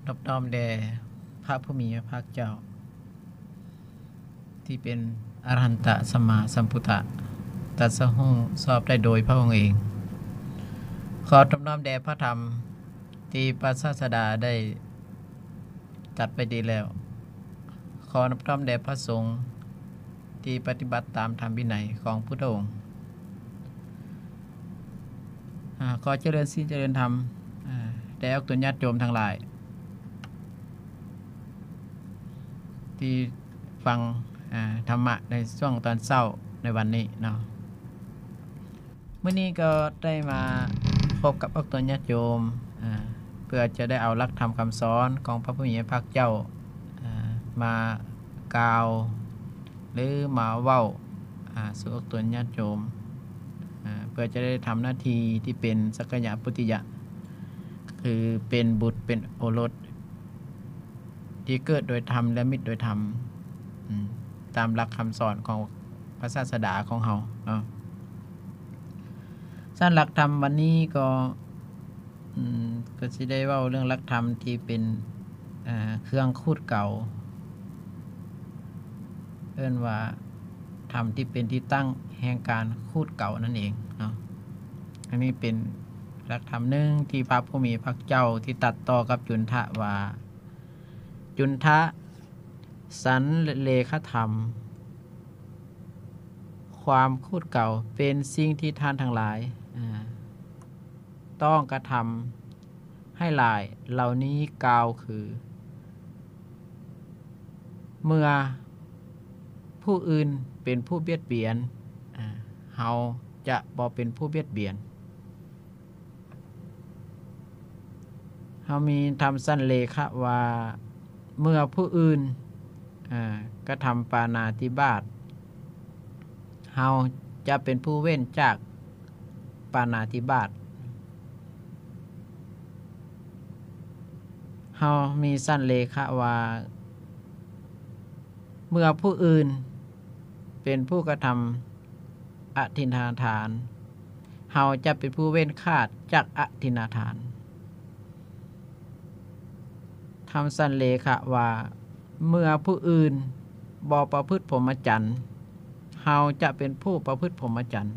ນອບນ້ອມແດ່ພະຜູ້ມີພະພາກເຈົ້າ ທີ່ເປັນອະລະຫັນຕະສຳມາສຳພຸດທະ ຕັດສະຮູ້ຊອບໄດ້ໂດຍພະອົງເອງ. ຂໍນອບນ້ອມແດ່ພະທຳທີ່ພະສາສະດາໄດ້ຕັດໄວ້ດີແລ້ວ. ຂໍນອບນ້ອມແດ່ພະສົງ ທີ່ປະຕິບັດຕາມທຳວິໄນຂອງພຸດທະອົງ. ອາ ຂໍຈະເລີນສິນຈະເລີນທຳ ອາ ແດ່ອອກຕົນຍາດໂຍມທັງຫຼາຍ ທີ່ຟັງ ອາ ທຳມະໃນຊ່ວງຕອນເຊົ້າໃນວັນນີ້ເນາະ. ມື້ນີ້ກໍໄດ້ມາພົບກັບອອກຕົນຍາດໂຍມ ອາ ເພື່ອຈະໄດ້ເອົາຫຼັກທຳຄຳສອນຂອງພະຜູ້ມີພະພາກເຈົ້າ ອາ ມາກ່າວ ຫຼື ມາເວົ້າ ອາ ສູ່ອອກຕົນຍາດໂຍມ ອາ ເພື່ອຈະໄດ້ທຳໜ້າທີ່ທີ່ເປັນສັກກະຍະປຸດຕິຍະ ຄືເປັນບຸດເປັນໂອລົດ ທີ່ເກີດໂດຍທຳ ແລະ ມິດໂດຍທຳ ອາ ຕາມຫຼັກຄຳສອນຂອງພະສາສະດາຂອງເຮົາເນາະ. ຊັ້ນຫຼັກທຳວັນນີ້ກໍ ອາ ກໍຊິໄດ້ເວົ້າເລື່ອງຫຼັກທຳທີ່ເປັນ ອາ ເຄື່ອງຂູດເກົາ ເອີ້ນວ່າທຳທີ່ເປັນທີ່ຕັ້ງແຫ່ງການຂູດເກົານັ້ນເອງເນາະ. ອັນນີ້ເປັນຫຼັກທຳໜຶ່ງທີ່ພະຜູ້ມີພະພາກເຈົ້າທີ່ຕັດຕໍ່ກັບຈຸນທະວ່າ ຈຸນທະ ສັນເລຂະທຳ ຄວາມຂູດເກົາເປັນສິ່ງທີ່ທ່ານທັງຫຼາຍ ອາ ຕ້ອງກະທຳໃຫ້ຫຼາຍເຫຼົ່ານີ້ກ່າວຄື ເມື່ອຜູ້ອື່ນເປັນຜູ້ບຽດບຽນ ອາ ເຮົາຈະບໍ່ເປັນຜູ້ບຽດບຽນ. ເຮົາມີທຳສັນເລຂະວ່າ ເມື່ອຜູ້ອື່ນ ອາ ກະທຳປານາຕິບາດ ເຮົາຈະເປັນຜູ້ເວັ້ນຈາກປານາຕິບາດ. ເຮົາມີສັນເລຂະວ່າ ເມື່ອຜູ້ອື່ນເປັນຜູ້ກະທຳອະທິນນາທານ ເຮົາຈະເປັນຜູ້ເວັ້ນຂາດຈາກອະທິນນາທານ. ທຳສັນເລຂະວ່າ ເມື່ອຜູ້ອື່ນບໍ່ປະພຶດພົມມະຈັນ ເຮົາຈະເປັນຜູ້ປະພຶດພົມມະຈັນ.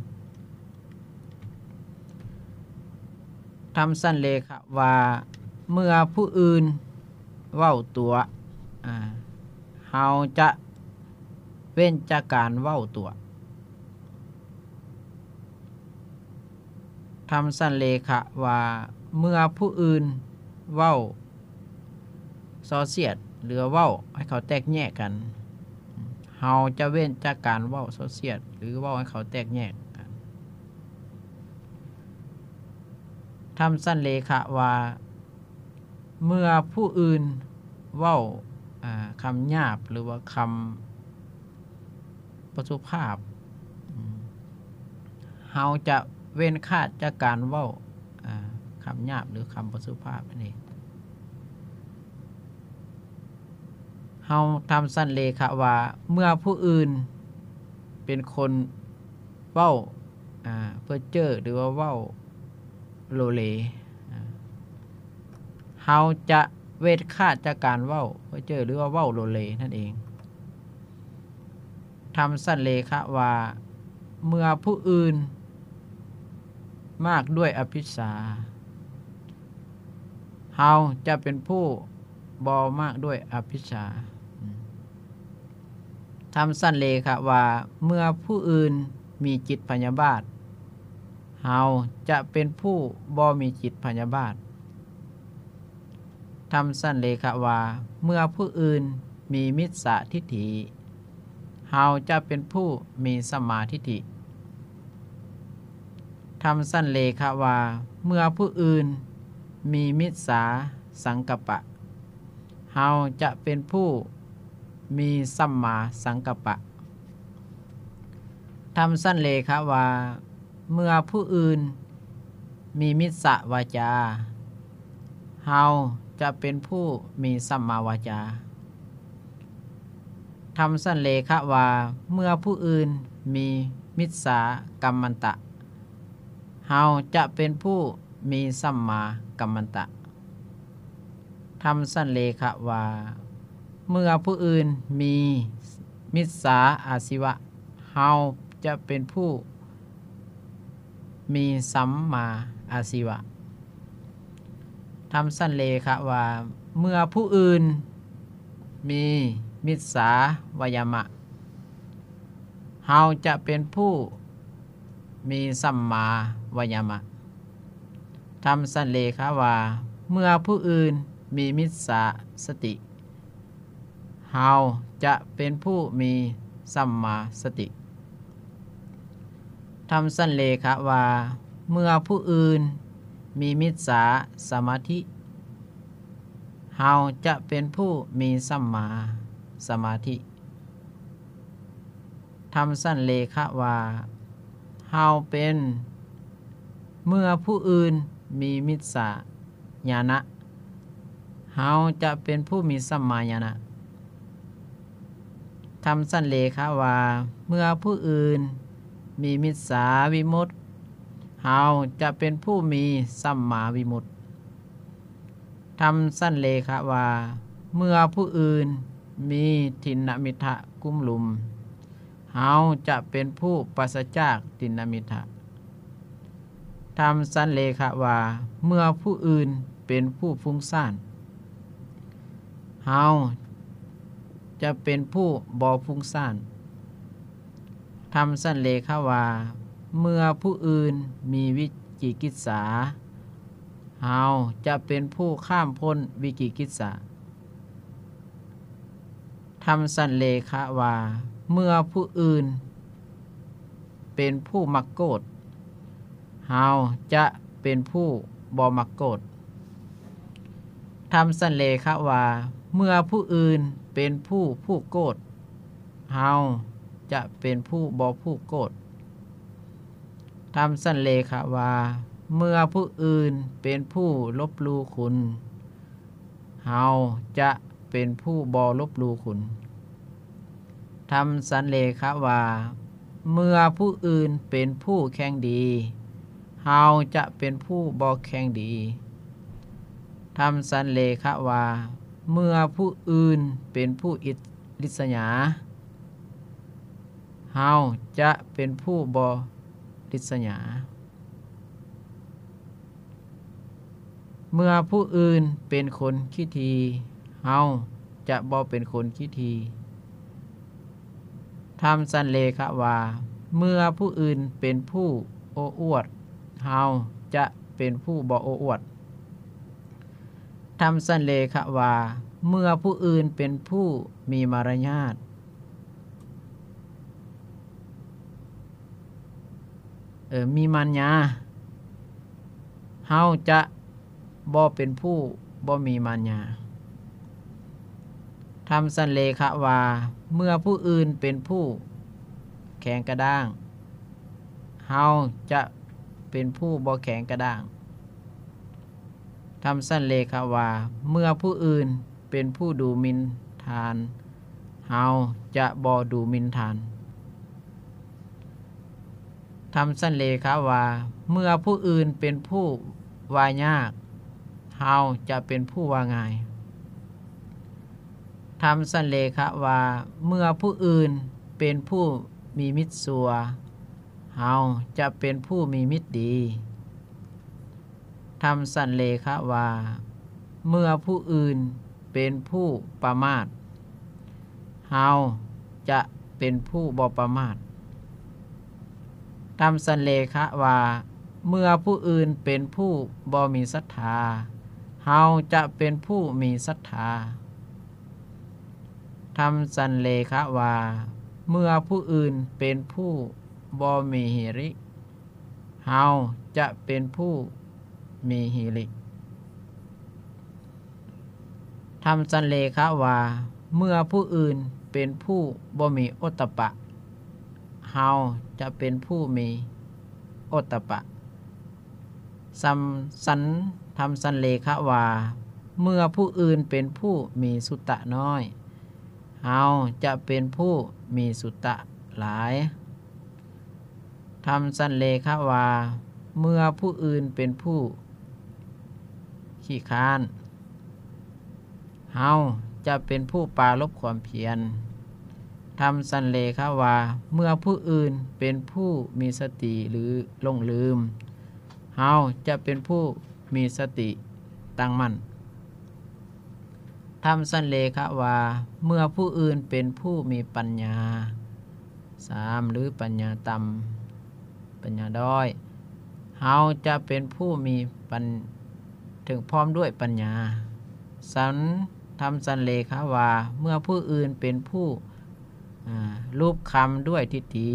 ທຳສັນເລຂະວ່າ ເມື່ອຜູ້ອື່ນເວົ້າຕົວະ ອາ ເຮົາຈະເວັ້ນຈາກການເວົ້າຕົວະ. ທຳສັນເລຂະວ່າ ເມື່ອຜູ້ອື່ນເວົ້າສໍ້ສຽດ ຫຼື ເວົ້າໃຫ້ເຂົາແຕກແຍກກັນ ເຮົາຈະເວັ້ນຈາກການເວົ້າສໍ້ສຽດ ຫຼື ເວົ້າໃຫ້ເຂົາແຕກແຍກກັນ. ທຳສັນເລຂະວ່າ ເມື່ອຜູ້ອື່ນເວົ້າ ອາ ຄຳຫຍາບ ຫຼືວ່າຄຳບໍ່ສຸພາບ ເຮົາຈະເວັ້ນຂາດຈາກການເວົ້າ ອາ ຄຳຫຍາບ ຫຼື ຄຳບໍ່ສຸພາບນັ້ນເອງ. ເຮົາທຳສັນເລຂະວ່າ ເມື່ອຜູ້ອື່ນເປັນຄົນເວົ້າ ອາ ເພີ້ເຈີ້ ຫຼືວ່າເວົ້າໂລເລ ອາ ເຮົາຈະເວັ້ນຂາດຈາກການເວົ້າເພີ້ເຈີ້ ຫຼືວ່າເວົ້າໂລເລນັ້ນເອງ. ທຳສັນເລຂະວ່າ ເມື່ອຜູ້ອື່ນມາກດ້ວຍອະພິດສາ ເຮົາຈະເປັນຜູ້ບໍ່ມາກດ້ວຍອະພິດສາ. ທຳສັນເລຂະວ່າ ເມື່ອຜູ້ອື່ນມີຈິດພະຍາບາດ ເຮົາຈະເປັນຜູ້ບໍ່ມີຈິດພະຍາບາດ. ທຳສັນເລຂະວ່າ ເມື່ອຜູ້ອື່ນມີມິດສາທິດຖິ ເຮົາຈະເປັນຜູ້ມີສຳມາທິດຖິ. ທຳສັນເລຂະວ່າ ເມື່ອຜູ້ອື່ນມີມິດສາສັງກັບປະ ເຮົາຈະເປັນຜູ້ມີສຳມາສັງກັບປະ. ທຳສັນເລຂະວ່າ ເມື່ອຜູ້ອື່ນມີມິດສະວາຈາ ເຮົາຈະເປັນຜູ້ມີສຳມາວາຈາ. ທຳສັນເລຂະວ່າ ເມື່ອຜູ້ອື່ນມີມິດສາກັມມັນຕະ ເຮົາຈະເປັນຜູ້ມີສຳມາກັມມັນຕະ. ທຳສັນເລຂະວ່າ ເມື່ອຜູ້ອື່ນມີມິດສາອາຊີວະ ເຮົາຈະເປັນຜູ້ມີສຳມາອາຊີວະ. ທຳສັນເລຂະວ່າ ເມື່ອຜູ້ອື່ນມີມິດສາວາຍາມະ ເຮົາຈະເປັນຜູ້ມີສຳມາວາຍາມະ. ທຳສັນເລຂະວ່າ ເມື່ອຜູ້ອື່ນມີມິດສາສະຕິ ເຮົາຈະເປັນຜູ້ມີສຳມາສະຕິ. ທຳສັນເລຂະວ່າ ເມື່ອຜູ້ອື່ນມີມິດສາສະມາທິ ເຮົາຈະເປັນຜູ້ມີສຳມາສະມາທິ. ທຳສັນເລຂະວ່າ ເຮົາເປັນ ເມື່ອຜູ້ອື່ນມີມິດສາ ຍານະ ເຮົາຈະເປັນຜູ້ມີສຳມາຍານະ. ທຳສັນເລຂະວ່າ ເມື່ອຜູ້ອື່ນມີມິດສາວິມຸດ ເຮົາຈະເປັນຜູ້ມີສຳມາວິມຸດ. ທຳສັນເລຂະວ່າ ເມື່ອຜູ້ອື່ນມີທິນນະມິດທະກຸ້ມລຸມ ເຮົາຈະເປັນຜູ້ປາສະຈາກທິນນະມິດທະ. ທຳສັນເລຂະວ່າ ເມື່ອຜູ້ອື່ນເປັນຜູ້ຟຸ້ງສ້ານ ເຮົາຈະເປັນຜູ້ບໍ່ຟຸ້ງສ້ານ. ທຳສັນເລຂະວ່າ ເມື່ອຜູ້ອື່ນມີວິຈິກິດສາ ເຮົາຈະເປັນຜູ້ຂ້າມພົ້ນວິຈິກິດສາ. ທຳສັນເລຂະວ່າ ເມື່ອຜູ້ອື່ນເປັນຜູ້ມັກໂກດ ເຮົາຈະເປັນຜູ້ບໍ່ມັກໂກດ. ທຳສັນເລຂະວ່າ ເມື່ອຜູ້ອື່ນເປັນຜູ້ຜູກໂກດ ເຮົາຈະເປັນຜູ້ບໍ່ຜູກໂກດ. ທຳສັນເລຂະວ່າ ເມື່ອຜູ້ອື່ນເປັນຜູ້ລົບຫຼູ່ຄຸນ ເຮົາຈະເປັນຜູ້ບໍ່ລົບຫຼູ່ຄຸນ. ທຳສັນເລຂະວ່າ ເມື່ອຜູ້ອື່ນເປັນຜູ້ແຂ່ງດີ ເຮົາຈະເປັນຜູ້ບໍ່ແຂ່ງດີ. ທຳສັນເລຂະວ່າ ເມື່ອຜູ້ອື່ນເປັນຜູ້ອິດ ລິດສະຫຍາ ເຮົາຈະເປັນຜູ້ບໍ່ລິດສະຫຍາ. ເມື່ອຜູ້ອື່ນເປັນຄົນຂີ້ຖີ່ ເຮົາຈະບໍ່ເປັນຄົນຂີ້ຖີ່. ທຳສັນເລຂະວ່າ ເມື່ອຜູ້ອື່ນເປັນຜູ້ໂອ້ອວດ ເຮົາຈະເປັນຜູ້ບໍ່ໂອ້ອວດ. ທຳສັນເລຂະວ່າ ເມື່ອຜູ້ອື່ນເປັນຜູ້ມີມາລະຍາດ ເອີ ມີມານຍາ ເຮົາຈະບໍ່ເປັນຜູ້ບໍ່ມີມານຍາ. ທຳສັນເລຂະວ່າ ເມື່ອຜູ້ອື່ນເປັນຜູ້ແຂງກະດ້າງ ເຮົາຈະເປັນຜູ້ບໍ່ແຂງກະດ້າງ. ທຳສັນເລຂະວ່າ ເມື່ອຜູ້ອື່ນເປັນຜູ້ດູໝິ່ນທ່ານ ເຮົາຈະບໍ່ດູໝິ່ນທ່ານ. ທຳສັນເລຂະວ່າ ເມື່ອຜູ້ອື່ນເປັນຜູ້ວ່າຍາກ ເຮົາຈະເປັນຜູ້ວ່າງ່າຍ. ທຳສັນເລຂະວ່າ ເມື່ອຜູ້ອື່ນເປັນຜູ້ມີມິດຊົ່ວ ເຮົາຈະເປັນຜູ້ມີມິດດີ. ທຳສັນເລຂະວ່າ ເມື່ອຜູ້ອື່ນເປັນຜູ້ປະໝາດ ເຮົາຈະເປັນຜູ້ບໍ່ປະໝາດ. ທຳສັນເລຂະວ່າ ເມື່ອຜູ້ອື່ນເປັນຜູ້ບໍ່ມີສັດທາ ເຮົາຈະເປັນຜູ້ມີສັດທາ. ທຳສັນເລຂະວ່າ ເມື່ອຜູ້ອື່ນເປັນຜູ້ບໍ່ມີຮີລິ ເຮົາຈະເປັນຜູ້ມີຮີລິ. ທຳສັນເລຂະວ່າ ເມື່ອຜູ້ອື່ນເປັນຜູ້ບໍ່ມີໂອດຕະປະ ເຮົາຈະເປັນຜູ້ມີໂອດຕະປະ. ສຳ ສັນ ທຳສັນເລຂະວ່າ ເມື່ອຜູ້ອື່ນເປັນຜູ້ມີສຸຕະນ້ອຍ ເຮົາຈະເປັນຜູ້ມີສຸຕະຫຼາຍ. ທຳສັນເລຂະວ່າ ເມື່ອຜູ້ອື່ນເປັນຜູ້ຂີ້ຄ້ານ ເຮົາຈະເປັນຜູ້ປາລົບຄວາມພຽນ. ທຳສັນເລຂະວ່າ ເມື່ອຜູ້ອື່ນເປັນຜູ້ມີສະຕິ ຫຼື ຫຼົງລືມ, ເຮົາຈະເປັນຜູ້ມີສະຕິຕັ້ງໝັ້ນ. ທຳສັນເລຂະວ່າ ເມື່ອຜູ້ອື່ນເປັນຜູ້ມີປັນຍາ ສາມ ຫຼື ປັນຍາຕ່ຳ, ປັນຍາດ້ອຍ, ເຮົາຈະເປັນຜູ້ມີປັນ ເຖິງພ້ອມດ້ວຍປັນຍາ. ສັນ ທຳສັນເລຂະວ່າ ເມື່ອຜູ້ອື່ນເປັນຜູ້ ອາ ລູບຄຳດ້ວຍທິດຖິ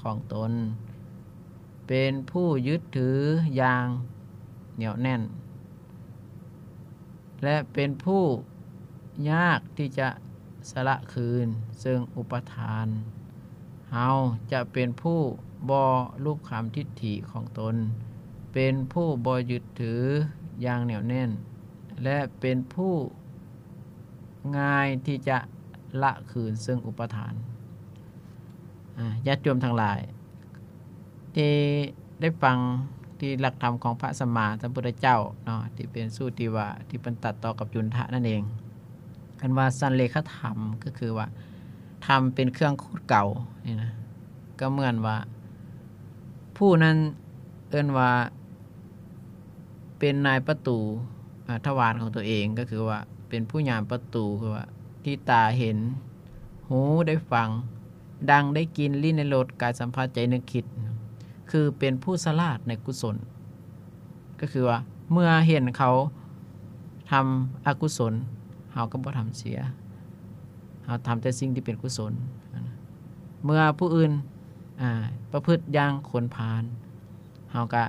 ຂອງຕົນ, ເປັນຜູ້ຍຶດຖືຢ່າງໜຽວແໜ້ນ ແລະ ເປັນຜູ້ຍາກທີ່ຈະສະລະຄືນເຊິ່ງອຸປາທານ, ເຮົາຈະເປັນຜູ້ບໍ່ລູບຄຳທິດຖິຂອງຕົນ, ເປັນຜູ້ບໍ່ຍຶດຖືຢ່າງໜຽວແໜ້ນ ແລະ ເປັນຜູ້ງ່າຍທີ່ຈະລະຄືນເຊິ່ງອຸປາທານ. ອາ ຍາດໂຍມທັງຫຼາຍ ທີ່ໄດ້ຟັງທີ່ຫຼັກທຳຂອງພະສຳມາສຳພຸດທະເຈົ້າເນາະ ທີ່ເປັນສູດທີ່ວ່າ ທີ່ເພິ່ນຕັດຕໍ່ກັບຈຸນທະນັ້ນເອງ. ອັນວ່າສັນເລຂະທຳ ກໍຄືວ່າ ທຳເປັນເຄື່ອງຂູດເກົານີ້ນະ, ກໍເໝືອນວ່າ ຜູ້ນັ້ນເອີ້ນວ່າ ເປັນນາຍປະຕູ ອາ ທະວານຂອງຕົວເອງ, ກໍຄືວ່າ ເປັນຜູ້ຍາມປະຕູ ຄືວ່າ ທີ່ຕາເຫັນ, ຫູໄດ້ຟັງ, ດັງໄດ້ກິ່ນ, ລີ້ນໄດ້ລົດ, ກາຍສຳຜັດ, ໃຈນຶກຄິດ, ຄືເປັນຜູ້ສະຫຼາດໃນກຸສົນ. ກໍຄືວ່າ ເມື່ອເຫັນເຂົາທຳອະກຸສົນ, ເຮົາກໍບໍ່ທຳເສຍ, ເຮົາທຳແຕ່ສິ່ງທີ່ເປັນກຸສົນ. ເມື່ອຜູ້ອື່ນ ອາ ປະພຶດຢ່າງຄົນພານ, ເຮົາກະ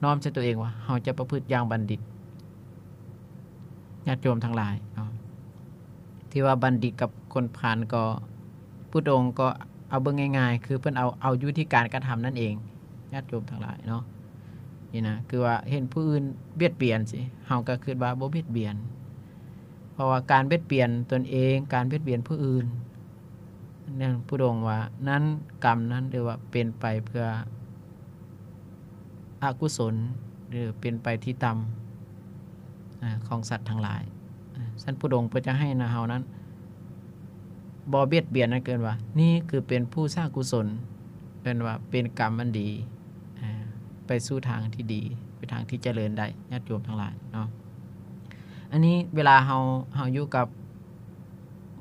ນ້ອມໃສ່ຕົວເອງວ່າ ເຮົາຈະປະພຶດຢ່າງບັນດິດ. ຍາດໂຍມທັງຫຼາຍເນາະ ທີ່ວ່າບັນດິດກັບຄົນພານກໍ ພຸດອົງກໍເອົາເບິ່ງງ່າຍໆ ຄືເພິ່ນເອົາ ເອົາຢູ່ທີ່ການກະທຳນັ້ນເອງ ຍາດໂຍມທັງຫຼາຍເນາະ. ນີ້ນະ ຄືວ່າເຫັນຜູ້ອື່ນບຽດບຽນຊິ ເຮົາກໍຄິດວ່າບໍ່ບຽດບຽນ, ເພາະວ່າການບຽດບຽນຕົນເອງ, ການບຽດບຽນຜູ້ອື່ນ ນັ້ນພຸດອົງວ່າ ນັ້ນກຳນັ້ນ ຫຼືວ່າເປັນໄປເພື່ອອະກຸສົນ ຫຼືເປັນໄປທີ່ຕ່ຳ ອາ ຂອງສັດທັງຫຼາຍ. ອາ ຊັ້ນພຸດອົງເພິ່ນຈະໃຫ້ນະເຮົານັ້ນ ບໍ່ບຽດບຽນ ນັ້ນເອີ້ນວ່າ ນີ້ຄືເປັນຜູ້ສ້າງກຸສົນ, ເອີ້ນວ່າເປັນກຳອັນດີ ອາ ໄປສູ່ທາງທີ່ດີ, ໄປທາງທີ່ຈະເລີນໄດ້ ຍາດໂຍມທັງຫຼາຍເນາະ. ອັນນີ້ເວລາເຮົາ ເຮົາຢູ່ກັບ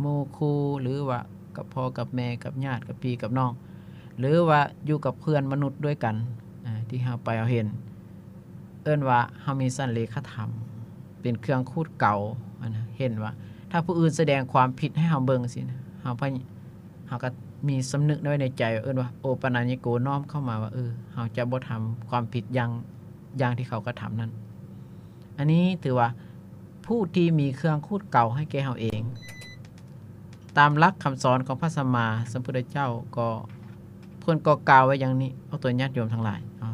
ໝູ່ຄູ່ ຫຼືວ່າກັບພໍ່ກັບແມ່ ກັບຍາດ ກັບພີ່ກັບນ້ອງ ຫຼືວ່າຢູ່ກັບເພື່ອນມະນຸດດ້ວຍກັນ ອາ ທີ່ເຮົາໄປເຮົາເຫັນ ເອີ້ນວ່າເຮົາມີສັນເລຂະທຳ ເປັນເຄື່ອງຂູດເກົາ ອັນນະ ເຫັນວ່າຖ້າຜູ້ອື່ນສະແດງຄວາມຜິດໃຫ້ເຮົາເບິ່ງຊີ້ນະ ເຮົາ ເຮົາກໍມີສຳນຶກໄວ້ໃນໃຈ ເອີ້ນວ່າ ໂອປະນະຍະໂກ ນ້ອມເຂົ້າມາວ່າ ເອີ ເຮົາຈະບໍ່ທຳຄວາມຜິດຢ່າງ ຢ່າງທີ່ເຂົາກະທຳນັ້ນ. ອັນນີ້ຖືວ່າ ຜູ້ທີ່ມີເຄື່ອງຂູດເກົາໃຫ້ແກ່ເຮົາເອງ. ຕາມຫຼັກຄຳສອນຂອງພະສຳມາສຳພຸດທະເຈົ້າກໍ ເພິ່ນກໍກ່າວໄວ້ຢ່າງນີ້ ອອກຕົວຍາດໂຍມທັງຫຼາຍເນາະ.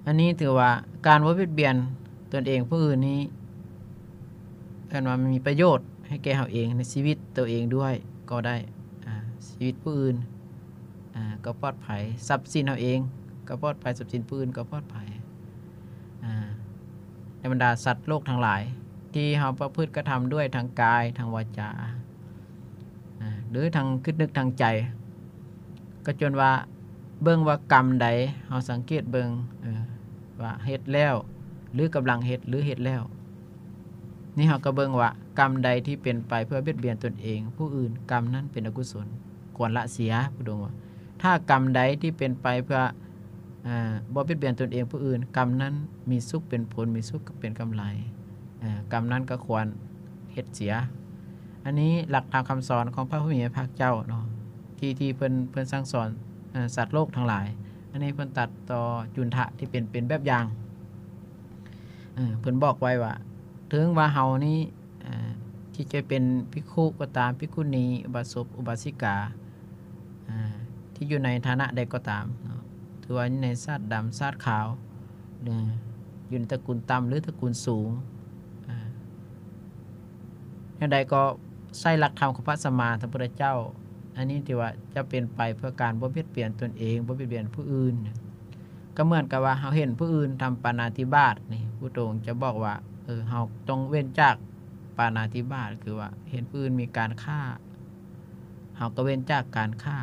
ອັນນີ້ຖືວ່າການບໍ່ບຽດບຽນຕົນເອງຜູ້ອື່ນນີ້ ເອີ້ນວ່າມີປະໂຫຍດໃຫ້ແກ່ເຮົາເອງ ໃນຊີວິດໂຕເອງດ້ວຍກໍໄດ້ ອາ ຊີວິດຜູ້ອື່ນ ອາ ກໍປອດໄພ, ຊັບສິນເຮົາເອງກໍປອດໄພ, ຊັບສິນຜູ້ອື່ນກໍປອດໄພ ອາ ໃນບັນດາສັດໂລກທັງຫຼາຍ ທີ່ເຮົາປະພຶດກະທຳດ້ວຍທາງກາຍ, ທາງວາຈາ ອາ ຫຼືທາງຄິດນຶກທາງໃຈ ກໍຈົນວ່າເບິ່ງວ່າກຳໃດ ເຮົາສັງເກດເບິ່ງ ເອີ ວ່າເຮັດແລ້ວ ຫຼືກຳລັງເຮັດ ຫຼືເຮັດແລ້ວ ນີ້ເຮົາກໍເບິ່ງວ່າກຳໃດທີ່ເປັນໄປເພື່ອບຽດບຽນຕົນເອງ ຜູ້ອື່ນ ກຳນັ້ນເປັນອະກຸສົນ ຄວນລະເສຍ. ພະອົງວ່າ ຖ້າກຳໃດທີ່ເປັນໄປເພື່ອ ອາ ບໍ່ບຽດບຽນຕົນເອງຜູ້ອື່ນ ກຳນັ້ນມີສຸກເປັນຜົນ ມີສຸກເປັນກຳໄລ ອາ ກຳນັ້ນກໍຄວນເຮັດເສຍ. ອັນນີ້ຫຼັກທຳຄຳສອນຂອງພະຜູ້ມີພະພາກເຈົ້າເນາະ ທີ່ ທີ່ເພິ່ນ ເພິ່ນສັ່ງສອນ ອາ ສັດໂລກທັງຫຼາຍ. ອັນນີ້ເພິ່ນຕັດຕໍ່ຈຸນທະທີ່ເປັນ ເປັນແບບຢ່າງ ເອີ ເພິ່ນບອກໄວ້ວ່າ ເຖິງວ່າເຮົານີ້ ອາ ທີ່ຈະເປັນພິກຂຸກໍຕາມ, ພິກຂຸນີ, ອຸບາສົກ, ອຸບາສິກາ ອາ ທີ່ຢູ່ໃນຖານະໃດກໍຕາມເນາະ ຖືວ່າຢູ່ໃນຊາດດຳຊາດຂາວ ຫຼືຢູ່ໃນຕະກຸນຕ່ຳ ຫຼືຕະກຸນສູງ ອາ ແນວໃດກໍໃຊ້ຫຼັກທຳຂອງພະສຳມາສຳພຸດທະເຈົ້າ ອັນນີ້ຖືວ່າຈະເປັນໄປເພື່ອການບໍ່ບຽດບຽນຕົນເອງ, ບໍ່ບຽດບຽນຜູ້ອື່ນ. ກໍເໝືອນກັບວ່າເຮົາເຫັນຜູ້ອື່ນທຳປານາຕິບາດນີ້ ພະພຸດທະອົງຈະບອກວ່າ ເຮົາຕ້ອງເວັ້ນຈາກປານາທິບາດ ຄືວ່າເຫັນຜູ້ອື່ນມີການຂ້າ ເຮົາກໍເວັ້ນຈາກການຂ້າ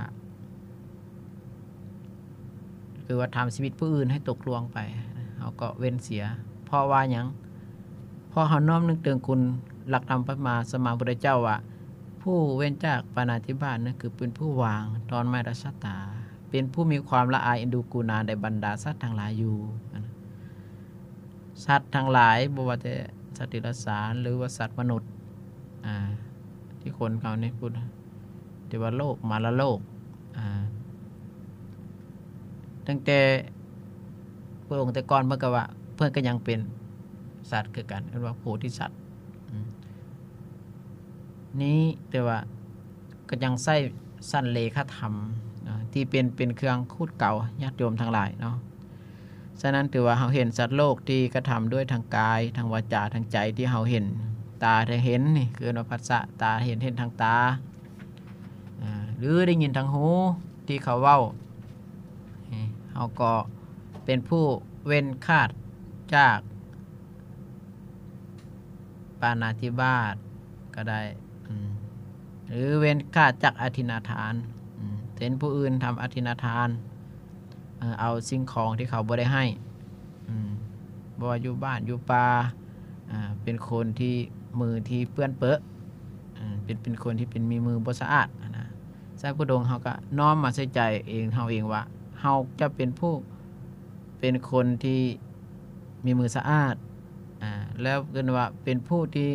ຄືວ່າທຳຊີວິດຜູ້ອື່ນໃຫ້ຕົກລ່ວງໄປ ເຮົາກໍເວັ້ນເສຍ. ເພາະວ່າຫຍັງ? ເພາະເຮົານ້ອມນຶກເຖິງຄຸນຫຼັກທຳພະມາສຳມາພຸດທະເຈົ້າວ່າ ຜູ້ເວັ້ນຈາກປານາທິບາດນັ້ນ ຄືເປັນຜູ້ວາງຕອນໄມ້ລະຊະຕາ ເປັນຜູ້ມີຄວາມລະອາຍເອັນດູກຸນາໃນບັນດາສັດທັງຫຼາຍຢູ່. ສັດທັງຫຼາຍ ບໍ່ວ່າແຕ່ສັດຕິລະສານ ຫຼືວ່າສັດມະນຸດ ອ່າ ທີ່ຄົນເຮົານີ້ພຸດ ເທວະໂລກ ມາລະໂລກ ອ່າ ຕັ້ງແຕ່ພະອົງແຕ່ກ່ອນເພິ່ນກໍວ່າ ເພິ່ນກໍຍັງເປັນສັດຄືກັນ ເອີ້ນວ່າໂພທິສັດ ອືມ ນີ້ ແຕ່ວ່າກໍຍັງໃຊ້ສັນເລຂະທຳ ທີ່ເປັນ ເປັນເຄື່ອງຂູດເກົາ ຍາດໂຍມທັງຫຼາຍເນາະ. ສະນັ້ນ ຖືວ່າເຮົາເຫັນສັດໂລກທີ່ກະທຳດ້ວຍທາງກາຍ ທາງວາຈາ ທາງໃຈ ທີ່ເຮົາເຫັນ ຕາໄດ້ເຫັນນີ້ ຄືເອີ້ນວ່າພັດສະ ຕາເຫັນ ເຫັນທາງຕາ ອາ ຫຼືໄດ້ຍິນທາງຫູທີ່ເຂົາເວົ້າ ເຮົາກໍເປັນຜູ້ເວັ້ນຂາດຈາກ ປານາທິບາດກໍໄດ້ ອືມ ຫຼືເວັ້ນຂາດຈາກອະທິນນາທານ ອືມ ເຊັ່ນຜູ້ອື່ນທຳອະທິນນາທານ ເອົາສິ່ງຂອງທີ່ເຂົາບໍ່ໄດ້ໃຫ້ ອືມ ບໍ່ວ່າຢູ່ບ້ານຢູ່ປ່າ ເປັນຄົນທີ່ມືທີ່ເປື້ອນເປິ ເປັນ ເປັນຄົນທີ່ເປັນ ມີມືບໍ່ສະອາດຫັ້ນນະ. ໃຊ້ພຸດອົງເຮົາກໍນ້ອມມາໃສ່ໃຈເອງ ເຮົາເອງວ່າ ເຮົາຈະເປັນຜູ້ ເປັນຄົນທີ່ມີມືສະອາດ ອາ ແລ້ວເອີ້ນວ່າເປັນຜູ້ທີ່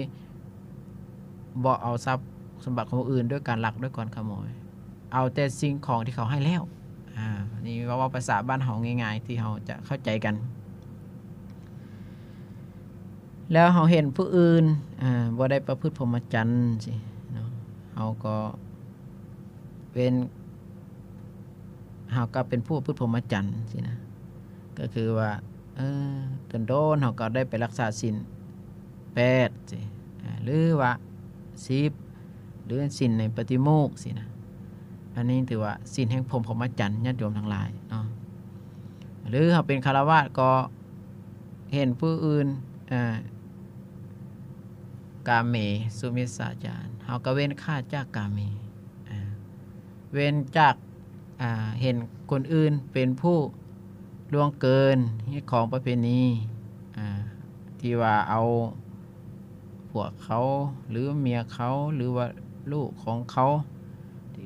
ບໍ່ເອົາຊັບສົມບັດຂອງຜູ້ອື່ນດ້ວຍການລັກດ້ວຍການຂະໂມຍ ເອົາແຕ່ສິ່ງຂອງທີ່ເຂົາໃຫ້ແລ້ວ ອາ ນີ້ເວົ້າ ເວົ້າພາສາບ້ານເຮົາງ່າຍໆ ທີ່ເຮົາຈະເຂົ້າໃຈກັນ. ແລ້ວເຮົາເຫັນຜູ້ອື່ນ ອາ ບໍ່ໄດ້ປະພຶດພົມມະຈັນຊີ້ເນາະ ເຮົາກໍເປັນ ເຮົາກໍເປັນຜູ້ປະພຶດພົມມະຈັນຊີ້ນະ ກໍຄືວ່າ ເອີ ດົນໆ ເຮົາກໍໄດ້ໄປລັກສາສິນແປດຊີ້ ອາ ຫຼືວ່າສິບ ຫຼືສິນໃນປະຕິໂມກຊີ້ນະ ອັນນີ້ຖືວ່າສິນແຫ່ງພົມ ພົມມະຈັນ ຍາດໂຍມທັງຫຼາຍເນາະ. ຫຼືເຮົາເປັນຄາລະວາດກໍເຫັນຜູ້ອື່ນ ອາ ກາເມ ສຸມິດສາຈານ ເຮົາກໍເວັ້ນຂາດຈາກກາເມ ອາ ເວັ້ນຈາກ ອາ ເຫັນຄົນອື່ນເປັນຜູ້ລ່ວງເກີນຮີດຄອງປະເພນີ ອາ ທີ່ວ່າເອົາຜົວເຂົາ ຫຼືເມຍເຂົາ ຫຼືວ່າລູກຂອງເຂົາ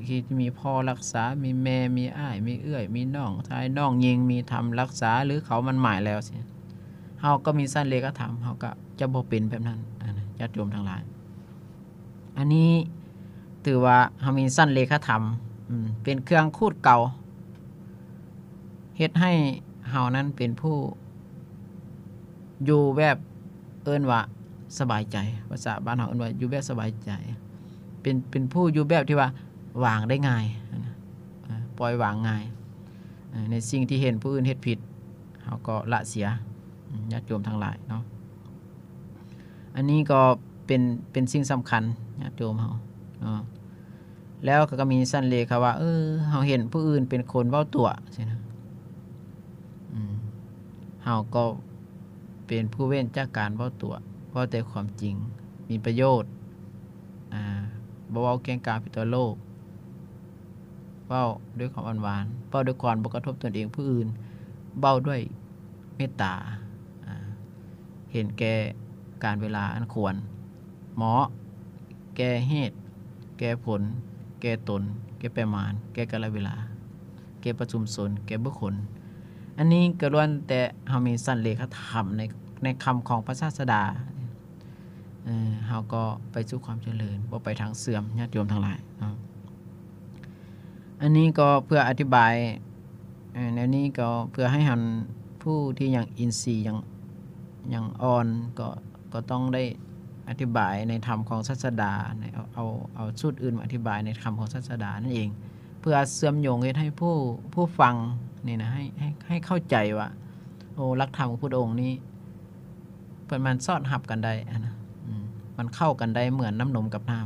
ທີ່ມີພໍ່ຮັກສາ ມີແມ່ ມີອ້າຍ ມີເອື້ອຍ ມີນ້ອງຊາຍ ນ້ອງຍິງ ມີທຳຮັກສາ ຫຼືເຂົາໝັ້ນໝາຍແລ້ວຊີ້ ເຮົາກໍມີສັນເລຂະທຳ ເຮົາກໍຈະບໍ່ເປັນແບບນັ້ນ ອາ ຍາດໂຍມທັງຫຼາຍ. ອັນນີ້ຖືວ່າເຮົາມີສັນເລຂະທຳ ອືມ ເປັນເຄື່ອງຂູດເກົາ ເຮັດໃຫ້ເຮົານັ້ນເປັນຜູ້ຢູ່ແບບ ເອີ້ນວ່າສະບາຍໃຈ ພາສາບ້ານເຮົາເອີ້ນວ່າຢູ່ແບບສະບາຍໃຈ ເປັນ ເປັນຜູ້ຢູ່ແບບທີ່ວ່າວາງໄດ້ງ່າຍ ອາ ປ່ອຍວາງງ່າຍ ອາ ໃນສິ່ງທີ່ເຫັນຜູ້ອື່ນເຮັດຜິດ ເຮົາກໍລະເສຍ ອາ ຍາດໂຍມທັງຫຼາຍເນາະ. ອັນນີ້ກໍເປັນ ເປັນສິ່ງສຳຄັນ ຍາດໂຍມເຮົາເນາະ. ແລ້ວກໍມີສັນເລຂະວ່າ ເອີ ເຮົາເຫັນຜູ້ອື່ນເປັນຄົນເວົ້າຕົວະຊີ້ນະ ອືມ ເຮົາກໍເປັນຜູ້ເວັ້ນຈາກການເວົ້າຕົວະ ເວົ້າແຕ່ຄວາມຈິງ ມີປະໂຫຍດ ອາ ບໍ່ເວົ້າກ່ຽງກ່າວຜິດຕໍ່ໂລກ ເວົ້າດ້ວຍຄວາມອ່ອນຫວານ ເວົ້າດ້ວຍຄວາມບໍ່ກະທົບຕົນເອງຜູ້ອື່ນ ເວົ້າດ້ວຍເມດຕາ ອາ ເຫັນແກ່ການເວລາອັນຄວນເໝາະ ແກ່ເຫດ ແກ່ຜົນ ແກ່ຕົນ ແກ່ປະມານ ແກ່ກາລະເວລາ ແກ່ປະຊຸມຊົນ ແກ່ບຸກຄົນ ອັນນີ້ກໍລ້ວນແຕ່ເຮົາມີສັນເລຂະທຳໃນ ໃນຄຳຂອງພະສາສະດາ ເຮົາກໍໄປສູ່ຄວາມຈະເລີນ ບໍ່ໄປທາງເສື່ອມ ຍາດໂຍມທັງຫຼາຍເນາະ. ອັນນີ້ກໍເພື່ອອະທິບາຍ ເອີ ແນວນີ້ກໍເພື່ອໃຫ້ເຮົາ ຜູ້ທີ່ຍັງອິນຊີຍັງ ຍັງອ່ອນ ກໍ ກໍຕ້ອງໄດ້ອະທິບາຍໃນທຳຂອງສາສະດາ ໃນ ເອົາ ເອົາ ເອົາສູດອື່ນມາອະທິບາຍໃນທຳຂອງສາສະດານັ້ນເອງ ເພື່ອເຊື່ອມໂຍງເຮັດໃຫ້ຜູ້ ຜູ້ຟັງນີ້ນະ ໃຫ້ ໃຫ້ ໃຫ້ເຂົ້າໃຈວ່າ ໂອ້ ຫຼັກທຳຂອງພຸດອົງນີ້ ເພິ່ນມັນສອດຮັບກັນໄດ້ຫັ້ນນະ ອືມ ມັນເຂົ້າກັນໄດ້ເໝືອນນ້ຳນົມກັບນ້ຳ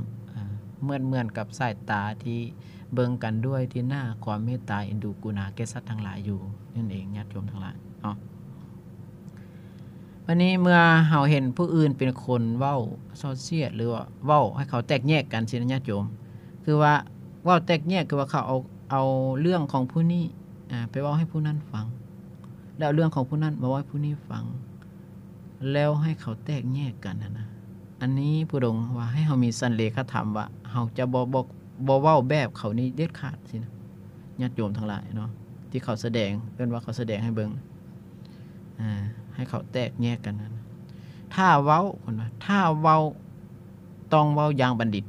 ເໝືອນ ເໝືອນກັບສາຍຕາທີ່ເບິ່ງກັນດ້ວຍທີ່ໜ້າຄວາມເມດຕາເອັນດູກະລຸນາແກ່ສັດທັງຫຼາຍຢູ່ນັ້ນເອງ ຍາດໂຍມທັງຫຼາຍເນາະ. ອັນນີ້ເມື່ອເຮົາເຫັນຜູ້ອື່ນເປັນຄົນເວົ້າສໍ້ສຽດ ຫຼືວ່າເວົ້າໃຫ້ເຂົາແຕກແຍກກັນຊີ້ນະ ຍາດໂຍມ, ຄືວ່າເວົ້າແຕກແຍກ ຄືວ່າເຂົາເອົາ ເອົາເລື່ອງຂອງຜູ້ນີ້ ອາ ໄປເວົ້າໃຫ້ຜູ້ນັ້ນຟັງ ແລ້ວເອົາເລື່ອງຂອງຜູ້ນັ້ນມາເວົ້າໃຫ້ຜູ້ນີ້ຟັງ ແລ້ວໃຫ້ເຂົາແຕກແຍກກັນຫັ້ນນະ. ອັນນີ້ຜູ້ດົງວ່າໃຫ້ເຮົາມີສັນເລກະທຳວ່າເຮົາຈະບໍ່ ບໍ່ ບໍ່ເວົ້າແບບເຂົານີ້ເດັດຂາດຊີ້ນະ ຍາດໂຍມທັງຫຼາຍເນາະ, ທີ່ເຂົາສະແດງ ເອີ້ນວ່າເຂົາສະແດງໃຫ້ເບິ່ງ ອາ ໃຫ້ເຂົາແຕກແຍກກັນນັ້ນ. ຖ້າເວົ້າ ເພິ່ນວ່າ ຖ້າເວົ້າຕ້ອງເວົ້າຢ່າງບັນດິດ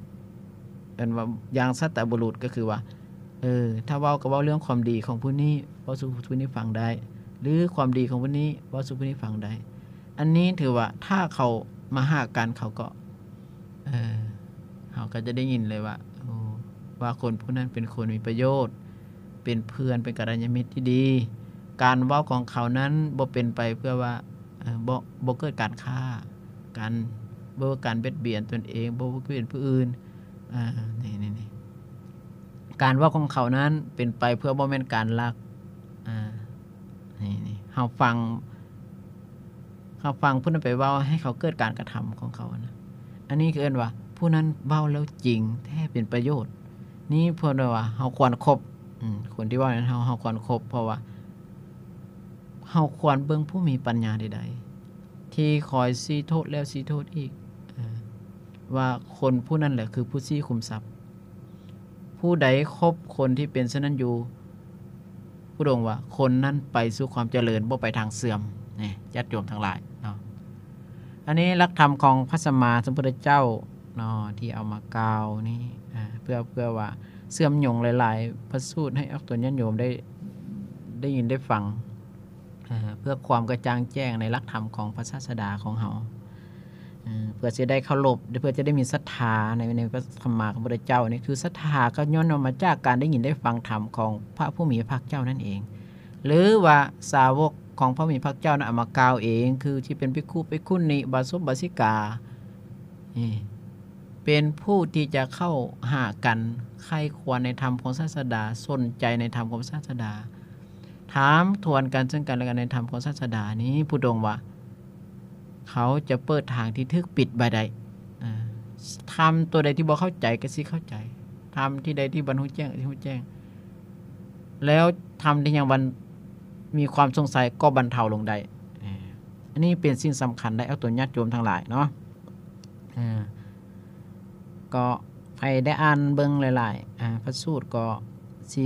ເອີ້ນວ່າຢ່າງສັດຕະບຸລຸດ ກໍຄືວ່າ ເອີ ຖ້າເວົ້າກໍເວົ້າເລື່ອງຄວາມດີຂອງຜູ້ນີ້ ເວົ້າສູ່ຜູ້ນີ້ຟັງໄດ້ ຫຼືຄວາມດີຂອງຜູ້ນີ້ເວົ້າສູ່ຜູ້ນີ້ຟັງໄດ້. ອັນນີ້ຖືວ່າຖ້າເຂົາມາຫາກັນ ເຂົາກໍ ເອີ ເຮົາກໍຈະໄດ້ຍິນເລີຍວ່າ ໂອ້ ວ່າຄົນຜູ້ນັ້ນເປັນຄົນມີປະໂຫຍດ ເປັນເພື່ອນ ເປັນກັນລະຍານມິດທີ່ດີ. ການເວົ້າຂອງເຂົານັ້ນບໍ່ເປັນໄປເພື່ອວ່າ ເອີ ບໍ່ ບໍ່ເກີດການຂ້າກັນ ບໍ່ເກີດການບຽດບຽນຕົນເອງ ບໍ່ບຽດບຽນຜູ້ອື່ນ. ເອີ ນີ້ ນີ້ ນີ້ ການເວົ້າຂອງເຂົານັ້ນເປັນໄປເພື່ອບໍ່ແມ່ນການລັກ. ອາ ນີ້ ນີ້ ເຮົາຟັງ ເຮົາຟັງຜູ້ນັ້ນໄປເວົ້າໃຫ້ເຂົາເກີດການກະທຳຂອງເຂົານະ. ອັນນີ້ຄືເອີ້ນວ່າຜູ້ນັ້ນເວົ້າແລ້ວຈິງແທ້ ເປັນປະໂຫຍດ. ນີ້ເພິ່ນເອີ້ນວ່າເຮົາຄວນຄົບ ອືມ ຄົນທີ່ເວົ້ານັ້ນ ເຮົາ ເຮົາຄວນຄົບ ເພາະວ່າເຮົາຄວນເບິ່ງຜູ້ມີປັນຍາໃດໆ ທີ່ຄອຍຊີ້ໂທດແລ້ວຊີ້ໂທດອີກ ເອີ ວ່າຄົນຜູ້ນັ້ນແຫຼະຄືຜູ້ຊີ້ຂຸມຊັບ. ຜູ້ໃດຄົບຄົນທີ່ເປັນເຊັ່ນນັ້ນຢູ່ ຜູ້ດົງວ່າຄົນນັ້ນໄປສູ່ຄວາມຈະເລີນ ບໍ່ໄປທາງເສື່ອມ ນີ້ ຍາດໂຍມທັງຫຼາຍເນາະ. ອັນນີ້ຫຼັກທຳຂອງພະສຳມາສຳພຸດທະເຈົ້າເນາະ ທີ່ເອົາມາກ່າວນີ້ ອາ ເພື່ອ ເພື່ອວ່າເຊື່ອມໂຍງຫຼາຍໆພະສູດໃຫ້ອອກຕົນຍາດໂຍມໄດ້ ໄດ້ຍິນໄດ້ຟັງ ເພື່ອຄວາມກະຈ່າງແຈ້ງໃນຫຼັກທຳຂອງພະສາສະດາຂອງເຮົາ ເພື່ອຊິໄດ້ເຄົາລົບ ເພື່ອຈະໄດ້ມີສັດທາໃນ ໃນພະສຳມາສຳພຸດທະເຈົ້ານີ້ ຄືສັດທາກໍຍ້ອນວ່າມາຈາກການໄດ້ຍິນໄດ້ຟັງທຳຂອງພະຜູ້ມີພະພາກເຈົ້ານັ້ນເອງ ຫຼືວ່າສາວົກຂອງພະຜູ້ມີພະພາກເຈົ້ານັ້ນເອົາມາກ່າວເອງ ຄືທີ່ເປັນພິກຂຸ ພິກຂຸນີ ອຸບາສົກ ອຸບາສິກາ ເປັນຜູ້ທີ່ຈະເຂົ້າຫາກັນ ໃຄ່ຄວນໃນທຳຂອງສາສະດາ ສົນໃຈໃນທຳຂອງສາສະດາ ຖາມທວນກັນເຊິ່ງກັນແລະກັນໃນທຳຂອງສາສະດານີ້ ຜູ້ດົງວ່າເຂົາຈະເປີດທາງທີ່ຖືກປິດໄວ້ໄດ້. ທຳຕົວໃດທີ່ບໍ່ເຂົ້າໃຈກໍຊິເຂົ້າໃຈ, ທຳທີ່ໃດທີ່ບໍ່ຮູ້ແຈ້ງກໍຊິຮູ້ແຈ້ງ, ແລ້ວທຳທີ່ຍັງບັນ ມີຄວາມສົງໄສກໍບັນເທົາລົງໄດ້. ອັນນີ້ເປັນສິ່ງສຳຄັນໄດ໋ ອອກຕົນຍາດໂຍມທັງຫຼາຍເນາະ. ກໍໃຜໄດ້ອ່ານເບິ່ງຫຼາຍໆ ອາ ພະສູດ ກໍຊິ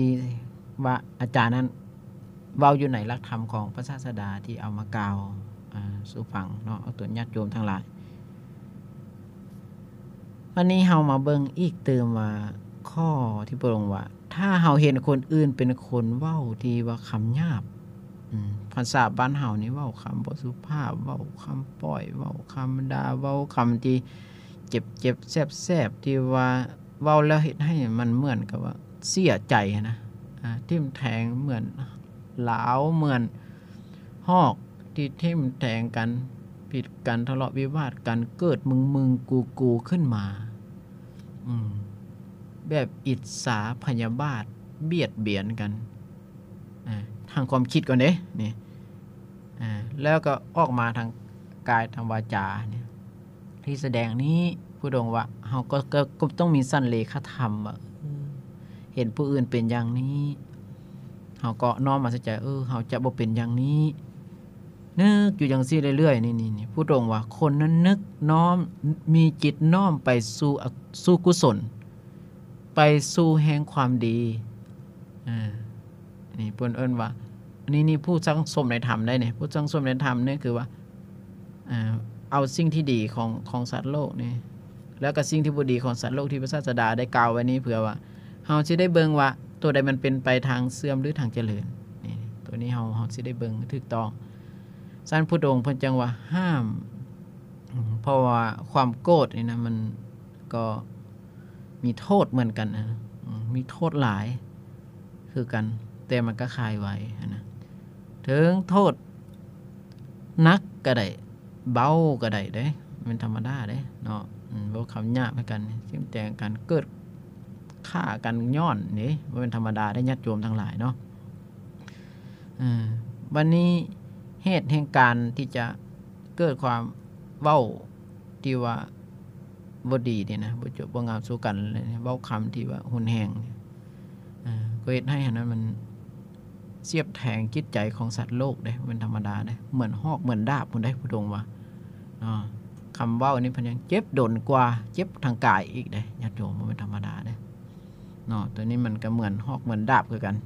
ວ່າອາຈານນັ້ນເວົ້າຢູ່ໃນຫຼັກທຳຂອງພະສາສະດາທີ່ເອົາມາກ່າວ ອາ ສູ່ຟັງເນາະ ອອກຕົນຍາດໂຍມທັງຫຼາຍ. ບັດນີ້ເຮົາມາເບິ່ງອີກຕື່ມວ່າ ຂໍ້ທີ່ພະອົງວ່າ ຖ້າເຮົາເຫັນຄົນອື່ນເປັນຄົນເວົ້າທີ່ວ່າຄຳຫຍາບ ອາ ພາສາບ້ານເຮົານີ້ເວົ້າຄຳບໍ່ສຸພາບ ເວົ້າຄຳປ້ອຍ ເວົ້າຄຳດ່າ ເວົ້າຄຳທີ່ເຈັບໆແສບໆ ທີ່ວ່າເວົ້າແລ້ວເຮັດໃຫ້ມັນເໝືອນກັບວ່າເສຍໃຈຫັ້ນນະ ອາ ທິ່ມແທງເໝືອນຫຼາວ ເໝືອນຫອກທີ່ທິ່ມແທງກັນ ຜິດກັນ ທະເລາະວິວາດກັນ ເກີດມຶງໆກູໆຂຶ້ນມາ ອືມ ແບບອິດສາພະຍາບາດ ບຽດບຽນກັນ ອາ ທາງຄວາມຄິດກ່ອນເດ້ ນີ້ ອາ ແລ້ວກໍອອກມາທາງກາຍ ທາງວາຈານີ້ ທີ່ສະແດງນີ້ ພະອົງວ່າ ເຮົາກໍ ກໍ ກໍຕ້ອງມີສັນເລຂະທຳວ່າ ເອີ ເຫັນຜູ້ອື່ນເປັນຢ່າງນີ້ ເຮົາກໍນ້ອມມາໃສ່ໃຈ ເອີ ເຮົາຈະບໍ່ເປັນຢ່າງນີ້ ນຶກຢູ່ຈັ່ງຊີ້ເລື້ອຍໆ ນີ້ ນີ້ ນີ້ ພະອົງວ່າ ຄົນນັ້ນນຶກນ້ອມ ມີຈິດນ້ອມໄປສູ່ ສູ່ກຸສົນ ໄປສູ່ແຫ່ງຄວາມດີ. ອາ ນີ້ເພິ່ນເອີ້ນວ່າ ນີ້ ນີ້ຜູ້ສັງສົມໃນທຳໄດ໋ນີ້ ຜູ້ສັງສົມໃນທຳນີ້ຄືວ່າ ເອົາສິ່ງທີ່ດີຂອງ ຂອງສັດໂລກນີ້ ແລ້ວກໍສິ່ງທີ່ບໍ່ດີຂອງສັດໂລກທີ່ພະສາສະດາໄດ້ກ່າວໄວ້ນີ້ ເພື່ອວ່າເຮົາຊິໄດ້ເບິ່ງວ່າໂຕໃດມັນເປັນໄປທາງເສື່ອມ ຫຼື ທາງຈະເລີນ ນີ້ ໂຕນີ້ເຮົາ ເຮົາຊິໄດ້ເບິ່ງຖືກຕ້ອງ. ຊັ້ນພະພຸດທະອົງເພິ່ນຈຶ່ງວ່າຫ້າມ ເພາະວ່າຄວາມໂກດນີ້ນະ ມັນກໍມີໂທດເໝືອນກັນ ອາ ມີໂທດຫຼາຍຄືກັນ ແຕ່ມັນກໍຄາຍໄວຫັ້ນນະ ເຖິງໂທດ ໜັກກໍໄດ້ ເບົາກໍໄດ້ເດ້ ແມ່ນທຳມະດາເດ້ເນາະ. ອືມ ເວົ້າຄຳຫຍາບໃຫ້ກັນ ຖິ້ມແຕ່ງກັນ ເກີດຂ້າກັນຍ້ອນເດ້ ບໍ່ແມ່ນທຳມະດາເດ້ ຍາດໂຍມທັງຫຼາຍເນາະ. ເອີ ບັດນີ້ເຫດແຫ່ງການທີ່ຈະ ເກີດຄວາມເວົ້າທີ່ວ່າບໍ່ດີນີ້ນະ ບໍ່ຈົບບໍ່ງາມສູ່ກັນເລີຍ ເວົ້າຄຳທີ່ວ່າຮຸນແຮງ ເອີ ກໍເຮັດໃຫ້ອັນນັ້ນມັນສຽບແທງຈິດໃຈຂອງສັດໂລກເດ້ ບໍ່ແມ່ນທຳມະດາເດ້ ເໝືອນຫອກເໝືອນດາບພຸ້ນເດ້ ຜູ້ດົງວ່າເນາະ. ຄຳເວົ້ານີ້ເພິ່ນຍັງເຈັບດົນກວ່າເຈັບທາງກາຍອີກເດ້ ຍາດໂຍມ ບໍ່ແມ່ນທຳມະດາເດ້ເນາະ. ໂຕນີ້ມັນກໍເໝືອນຫອກເໝືອນດາບຄືກັນ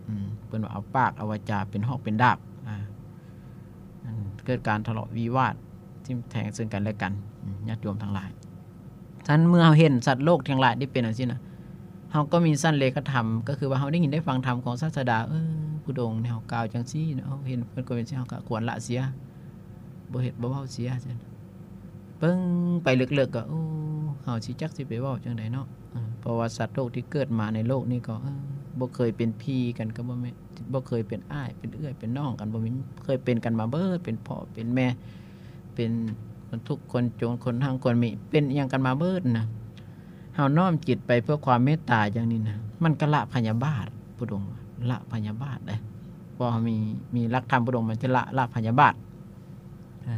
ອືມ ເພິ່ນວ່າເອົາປາກເອົາວາຈາເປັນຫອກເປັນດາບ ອາ ເກີດການທະເລາະວິວາດ ທິ່ມແທງເຊິ່ງກັນແລະກັນ ຍາດໂຍມທັງຫຼາຍ. ຊັ້ນເມື່ອເຮົາເຫັນສັດໂລກທັງຫຼາຍໄດ້ເປັນຈັ່ງຊີ້ນະ ເຮົາກໍມີສັນເລກະທຳ ກໍຄືວ່າເຮົາໄດ້ຍິນໄດ້ຟັງທຳຂອງສາດສະດາ ເອີ ຜູ້ດົງແນວກ່າວຈັ່ງຊີ້ນະ ເຮົາເຫັນເພິ່ນກໍເປັນຈັ່ງຊີ້ ເຮົາກໍຄວນລະເສຍ ບໍ່ເຮັດບໍ່ເວົ້າເສຍ ເບິ່ງໄປເລິກໆ ກໍ ໂອ້ ເຮົາຊິຈັກຊິໄປເວົ້າຈັ່ງໃດເນາະ. ເອີ ເພາະວ່າສັດໂລກທີ່ເກີດມາໃນໂລກນີ້ກໍ ເອີ ບໍ່ເຄີຍເປັນພີ່ກັນກໍບໍ່ແມ່ນ ບໍ່ເຄີຍເປັນອ້າຍເປັນເອື້ອຍເປັນນ້ອງກັນ ບໍ່ມີ ເຄີຍເປັນກັນມາເບີດ ເປັນພໍ່ເປັນແມ່ ເປັນຄົນທຸກຄົນຈົນ ຄົນຮັ່ງຄົນມີ ເປັນອີ່ຫຍັງກັນມາເບີດນະ. ເຮົານ້ອມຈິດໄປເພື່ອຄວາມເມດຕາຢ່າງນີ້ນະ ມັນກໍລະພະຍາບາດ ຜູ້ດົງ ລະພະຍາບາດເດ້ ເພາະເຮົາມີ ມີຫຼັກທຳ ຜູ້ດົງ ມັນຈະລະ ລະພະຍາບາດ. ອາ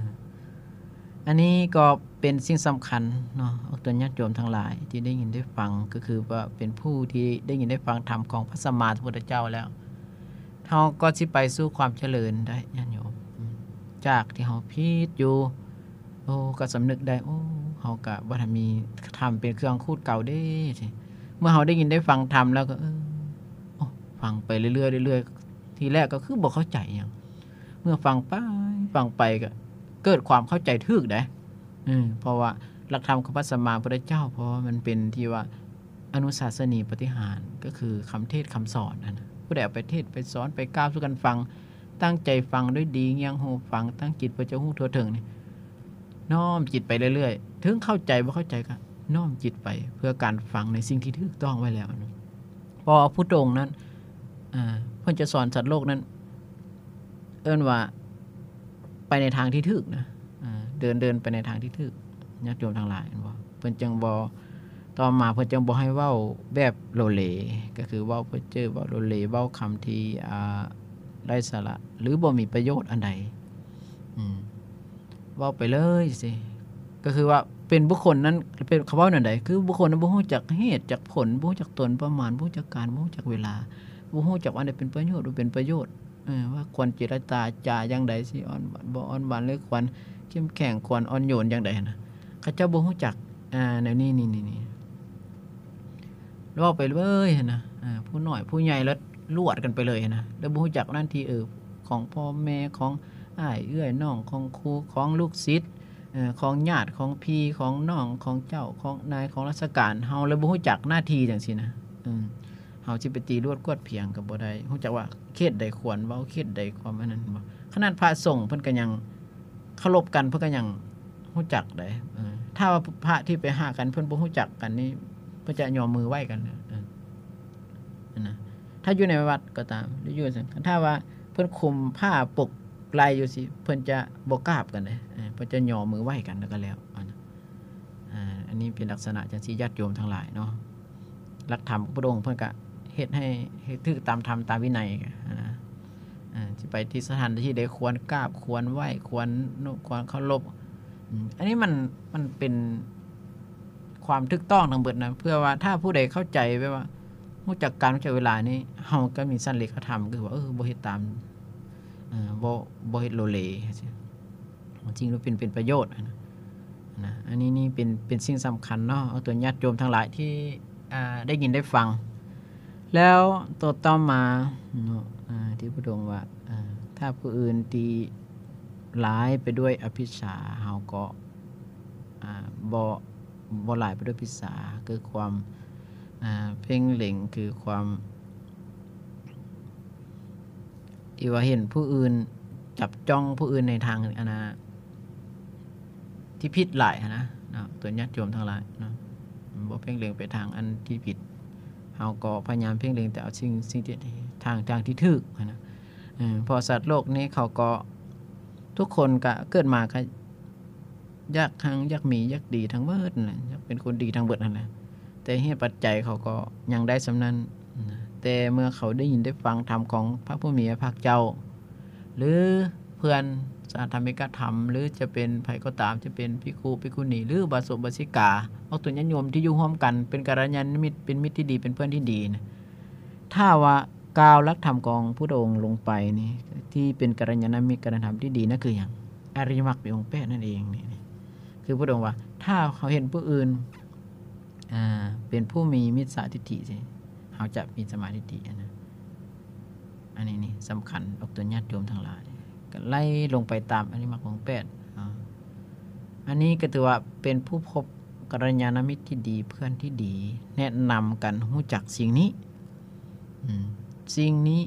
ອັນນີ້ກໍເປັນສິ່ງສຳຄັນເນາະ ອອກຕົນຍາດໂຍມທັງຫຼາຍທີ່ໄດ້ຍິນໄດ້ຟັງ ກໍຄືວ່າເປັນຜູ້ທີ່ໄດ້ຍິນໄດ້ຟັງທຳຂອງພະສຳມາສຳພຸດທະເຈົ້າແລ້ວ ເຮົາກໍຊິໄປສູ່ຄວາມຈະເລີນໄດ້ຍາດໂຍມ. ອາ ຈາກທີ່ເຮົາຜິດຢູ່ ໂອ້ ກໍສຳນຶກໄດ້ ໂອ້ ເຮົາກໍບໍ່ທັນມີທຳເປັນເຄື່ອງຂູດເກົ່າເດ້. ເມື່ອເຮົາໄດ້ຍິນໄດ້ຟັງທຳແລ້ວກໍ ເອີ ໂອ້ ຟັງໄປເລື້ອຍໆ ເລື້ອຍໆ ທີແລກກໍຄືບໍ່ເຂົ້າໃຈຫຍັງ ເມື່ອຟັງໄປຟັງໄປກໍເກີດຄວາມເຂົ້າໃຈຖືກເດ້. ເອີ ເພາະວ່າຫຼັກທຳຂອງພະສຳມາພຸດທະເຈົ້າ ເພາະວ່າມັນເປັນທີ່ວ່າອະນຸສາສະນີປາຕິຫານ ກໍຄືຄຳເທດຄຳສອນຫັ້ນນະ ຜູ້ໃດເອົາໄປເທດໄປສອນໄປກ່າວສູ່ກັນຟັງ ຕັ້ງໃຈຟັງດ້ວຍດີ ງຽງຫູຟັງ ຕັ້ງຈິດເພື່ອຈະຮູ້ທົ່ວເຖິງນີ້ ນ້ອມຈິດໄປເລື້ອຍໆ ເຖິງເຂົ້າໃຈບໍ່ເຂົ້າໃຈກໍນ້ອມຈິດໄປເພື່ອການຟັງໃນສິ່ງທີ່ຖືກຕ້ອງໄວ້ແລ້ວ. ເພາະວ່າຜູ້ຕົງນັ້ນ ເອີ ເພິ່ນຈະສອນສັດໂລກນັ້ນ ເອີ້ນວ່າໄປໃນທາງທີ່ຖືກນະ ເອີ ເດີນ ເດີນໄປໃນທາງທີ່ຖືກ ຍາດໂຍມທັງຫຼາຍ ເຫັນບໍ່? ເພິ່ນຈຶ່ງບໍ່ ຕໍ່ມາເພິ່ນຈຶ່ງບໍ່ໃຫ້ເວົ້າແບບໂລເລ ກໍຄືເວົ້າເພີ້ເຈີ້ ເວົ້າໂລເລ ເວົ້າຄຳທີ່ ອ່າ ໄຮ້ສາລະ ຫຼື ບໍ່ມີປະໂຫຍດອັນໃດ ອືມ ເວົ້າໄປເລີຍຊີ້ ກໍຄືວ່າເປັນບຸກຄົນນັ້ນ ເປັນ ເຂົາເວົ້າແນວໃດ ຄືບຸກຄົນນັ້ນບໍ່ຮູ້ຈັກເຫດຈັກຜົນ ບໍ່ຮູ້ຈັກຕົນປະມານ ບໍ່ຮູ້ຈັກການ ບໍ່ຮູ້ຈັກເວລາ ບໍ່ຮູ້ຈັກວ່າອັນໃດເປັນປະໂຫຍດ ບໍ່ເປັນປະໂຫຍດ ເອີ ວ່າຄວນເຈລະຈາ ຈາຢ່າງໃດ ຊິອ່ອນຫວານບໍ່ອ່ອນຫວານ ຫຼື ຄວນເຂັ້ມແຂງ ຄວນອ່ອນໂຍນຢ່າງໃດຫັ້ນນະ ເຂົາເຈົ້າບໍ່ຮູ້ຈັກ ອ່າ ແນວນີ້ ນີ້ ນີ້ ນີ້ ເວົ້າໄປເລີຍຫັ້ນນະ ເອີ ຜູ້ນ້ອຍຜູ້ໃຫຍ່ລະລວດກັນໄປເລີຍຫັ້ນນະ ແລ້ວບໍ່ຮູ້ຈັກໜ້າທີ່ ເອີ ຂອງພໍ່ແມ່ ຂອງອ້າຍເອື້ອຍນ້ອງ ຂອງຄູ່ ຂອງລູກສິດ ເອີ ຂອງຍາດ ຂອງພີ່ ຂອງນ້ອງ ຂອງເຈົ້າ ຂອງນາຍ ຂອງລາຊະການ ເຮົາເລີຍບໍ່ຮູ້ຈັກໜ້າທີ່ຈັ່ງຊີ້ນະ ເອີ ເຮົາຊິໄປຕີລວດກວດພຽງກໍບໍ່ໄດ້ ຮູ້ຈັກວ່າເຂດໃດຄວນເວົ້າ ເຂດໃດຄວາມອັນນັ້ນບໍ່? ຂະໜາດພະສົງເພິ່ນກໍຍັງເຄົາລົບກັນ ເພິ່ນກໍຍັງຮູ້ຈັກໄດ໋ ເອີ ຖ້າວ່າພະທີ່ໄປຫາກັນເພິ່ນບໍ່ຮູ້ຈັກກັນນີ້ ເພິ່ນຈະຍໍມືໄຫວ້ກັນ ເອີ ຫັ້ນນະ ຖ້າຢູ່ໃນວັດກໍຕາມ ຫຼື ຢູ່ ຖ້າວ່າເພິ່ນຄຸມຜ້າປົກໄລ່ຢູ່ຊີ້ ເພິ່ນຈະບໍ່ກາບກັນເດ້ ເອີ ເພິ່ນຈະຍໍມືໄຫວ້ກັນ ແລ້ວກໍແລ້ວ ອັນ ອ່າ ອັນນີ້ເປັນລັກສະນະຈັ່ງຊີ້ ຍາດໂຍມທັງຫຼາຍເນາະ ຫຼັກທຳຂອງພະອົງເພິ່ນກະເຮັດໃຫ້ ໃຫ້ຖືກຕາມທຳຕາມວິໄນຫັ້ນນະ ເອີ ຊິໄປທີ່ສະຖານທີ່ໃດຄວນກາບຄວນໄຫວ້ຄວນນົບຄວນເຄົາລົບ ອືມ ອັນນີ້ມັນ ມັນເປັນຄວາມຖືກຕ້ອງທັງເບິດນະ ເພື່ອວ່າຖ້າຜູ້ໃດເຂົ້າໃຈແບບວ່າຮູ້ຈັກການ ຮູ້ຈັກເວລານີ້ ເຮົາກໍມີສັນເລກະທຳ ຄືວ່າ ເອີ ບໍ່ເຮັດຕາມ ເອີ ບໍ່ ບໍ່ເຮັດໂລເລ ສິ່ງທີ່ເປັນ ເປັນປະໂຫຍດນະ ນະ ອັນນີ້ນີ້ເປັນ ເປັນສິ່ງສຳຄັນເນາະ ເອົາຕົວຍາດໂຍມທັງຫຼາຍທີ່ ອ່າ ໄດ້ຍິນໄດ້ຟັງ ແລ້ວໂຕຕໍ່ມາເນາະ ອ່າ ທີ່ພະອົງວ່າ ອ່າ ຖ້າຜູ້ອື່ນຕີຫຼາຍໄປດ້ວຍອະພິດສາ ເຮົາກໍ ອ່າ ບໍ່ ບໍ່ຫຼາຍໄປດ້ວຍພິດສາ ຄືຄວາມ ອ່າ ເພງເລັງ ຄືຄວາມ ທີ່ວ່າເຫັນຜູ້ອື່ນ ຈັບຈ້ອງຜູ້ອື່ນໃນທາງ ອັນນ່າ ທີ່ຜິດຫຼາຍຫັ້ນນະເນາະ ຕົວຍາດໂຍມທັງຫຼາຍເນາະ ບໍ່ເພງເລັງໄປທາງອັນທີ່ຜິດ ເຮົາກໍພະຍາຍາມເພງເລັງແຕ່ເອົາສິ່ງ ສິ່ງທີ່ ທາງ ທາງທີ່ຖືກຫັ້ນນະ ເພາະສັດໂລກນີ້ເຂົາກໍ ທຸກຄົນກະເກີດມາກະ ຢາກຮັ່ງ ຢາກມີ ຢາກດີທັງເບິດຫັ້ນແຫຼະ ຢາກເປັນຄົນດີທັງເບິດຫັ້ນແຫຼະ ແຕ່ເຫດປັດໄຈເຂົາກໍຍັງໄດ້ສ່ຳນັ້ນນະ ແຕ່ເມື່ອເຂົາໄດ້ຍິນໄດ້ຟັງທຳຂອງພະຜູ້ມີພະພາກເຈົ້າ ຫຼື ເພື່ອນສະຫະທຳມິກະທຳ ຫຼື ຈະເປັນໃຜກໍຕາມ ຈະເປັນພິກຂຸ ພິກຂຸນີ ຫຼື ອຸບາສົກ ອຸບາສິກາ ອອກຕົນຍາດໂຍມທີ່ຢູ່ຮ່ວມກັນ ເປັນກັນລະຍານະມິດ ເປັນມິດທີ່ດີ ເປັນເພື່ອນທີ່ດີນະ ຖ້າວ່າກ່າວຫຼັກທຳຂອງພຸດທະອົງລົງໄປນີ້ ທີ່ເປັນກັນລະຍານະມິດ ກັນລະຍານະທຳທີ່ດີນັ້ນຄືຫຍັງ? ອະລິຍະມັກມີອົງແປດນັ້ນເອງນີ້ ຄືພຸດທະອົງວ່າ ຖ້າເຮົາເຫັນຜູ້ອື່ນ ອ່າ ເປັນຜູ້ມີມິດສາທິດຖິ ເຮົາຈະມີສຳມາທິດຖິ ອັນນັ້ນ ອັນນີ້ນີ້ສຳຄັນອອກຕົນຍາດໂຍມທັງຫຼາຍ ກໍໄລ່ລົງໄປຕາມອະລິຍະມັກອົງແປດ ອາ ອັນນີ້ກໍຖືວ່າເປັນຜູ້ພົບກັນລະຍານະມິດທີ່ດີ ເພື່ອນທີ່ດີ ແນະນຳກັນຮູ້ຈັກສິ່ງນີ້ ອືມ ສິ່ງນີ້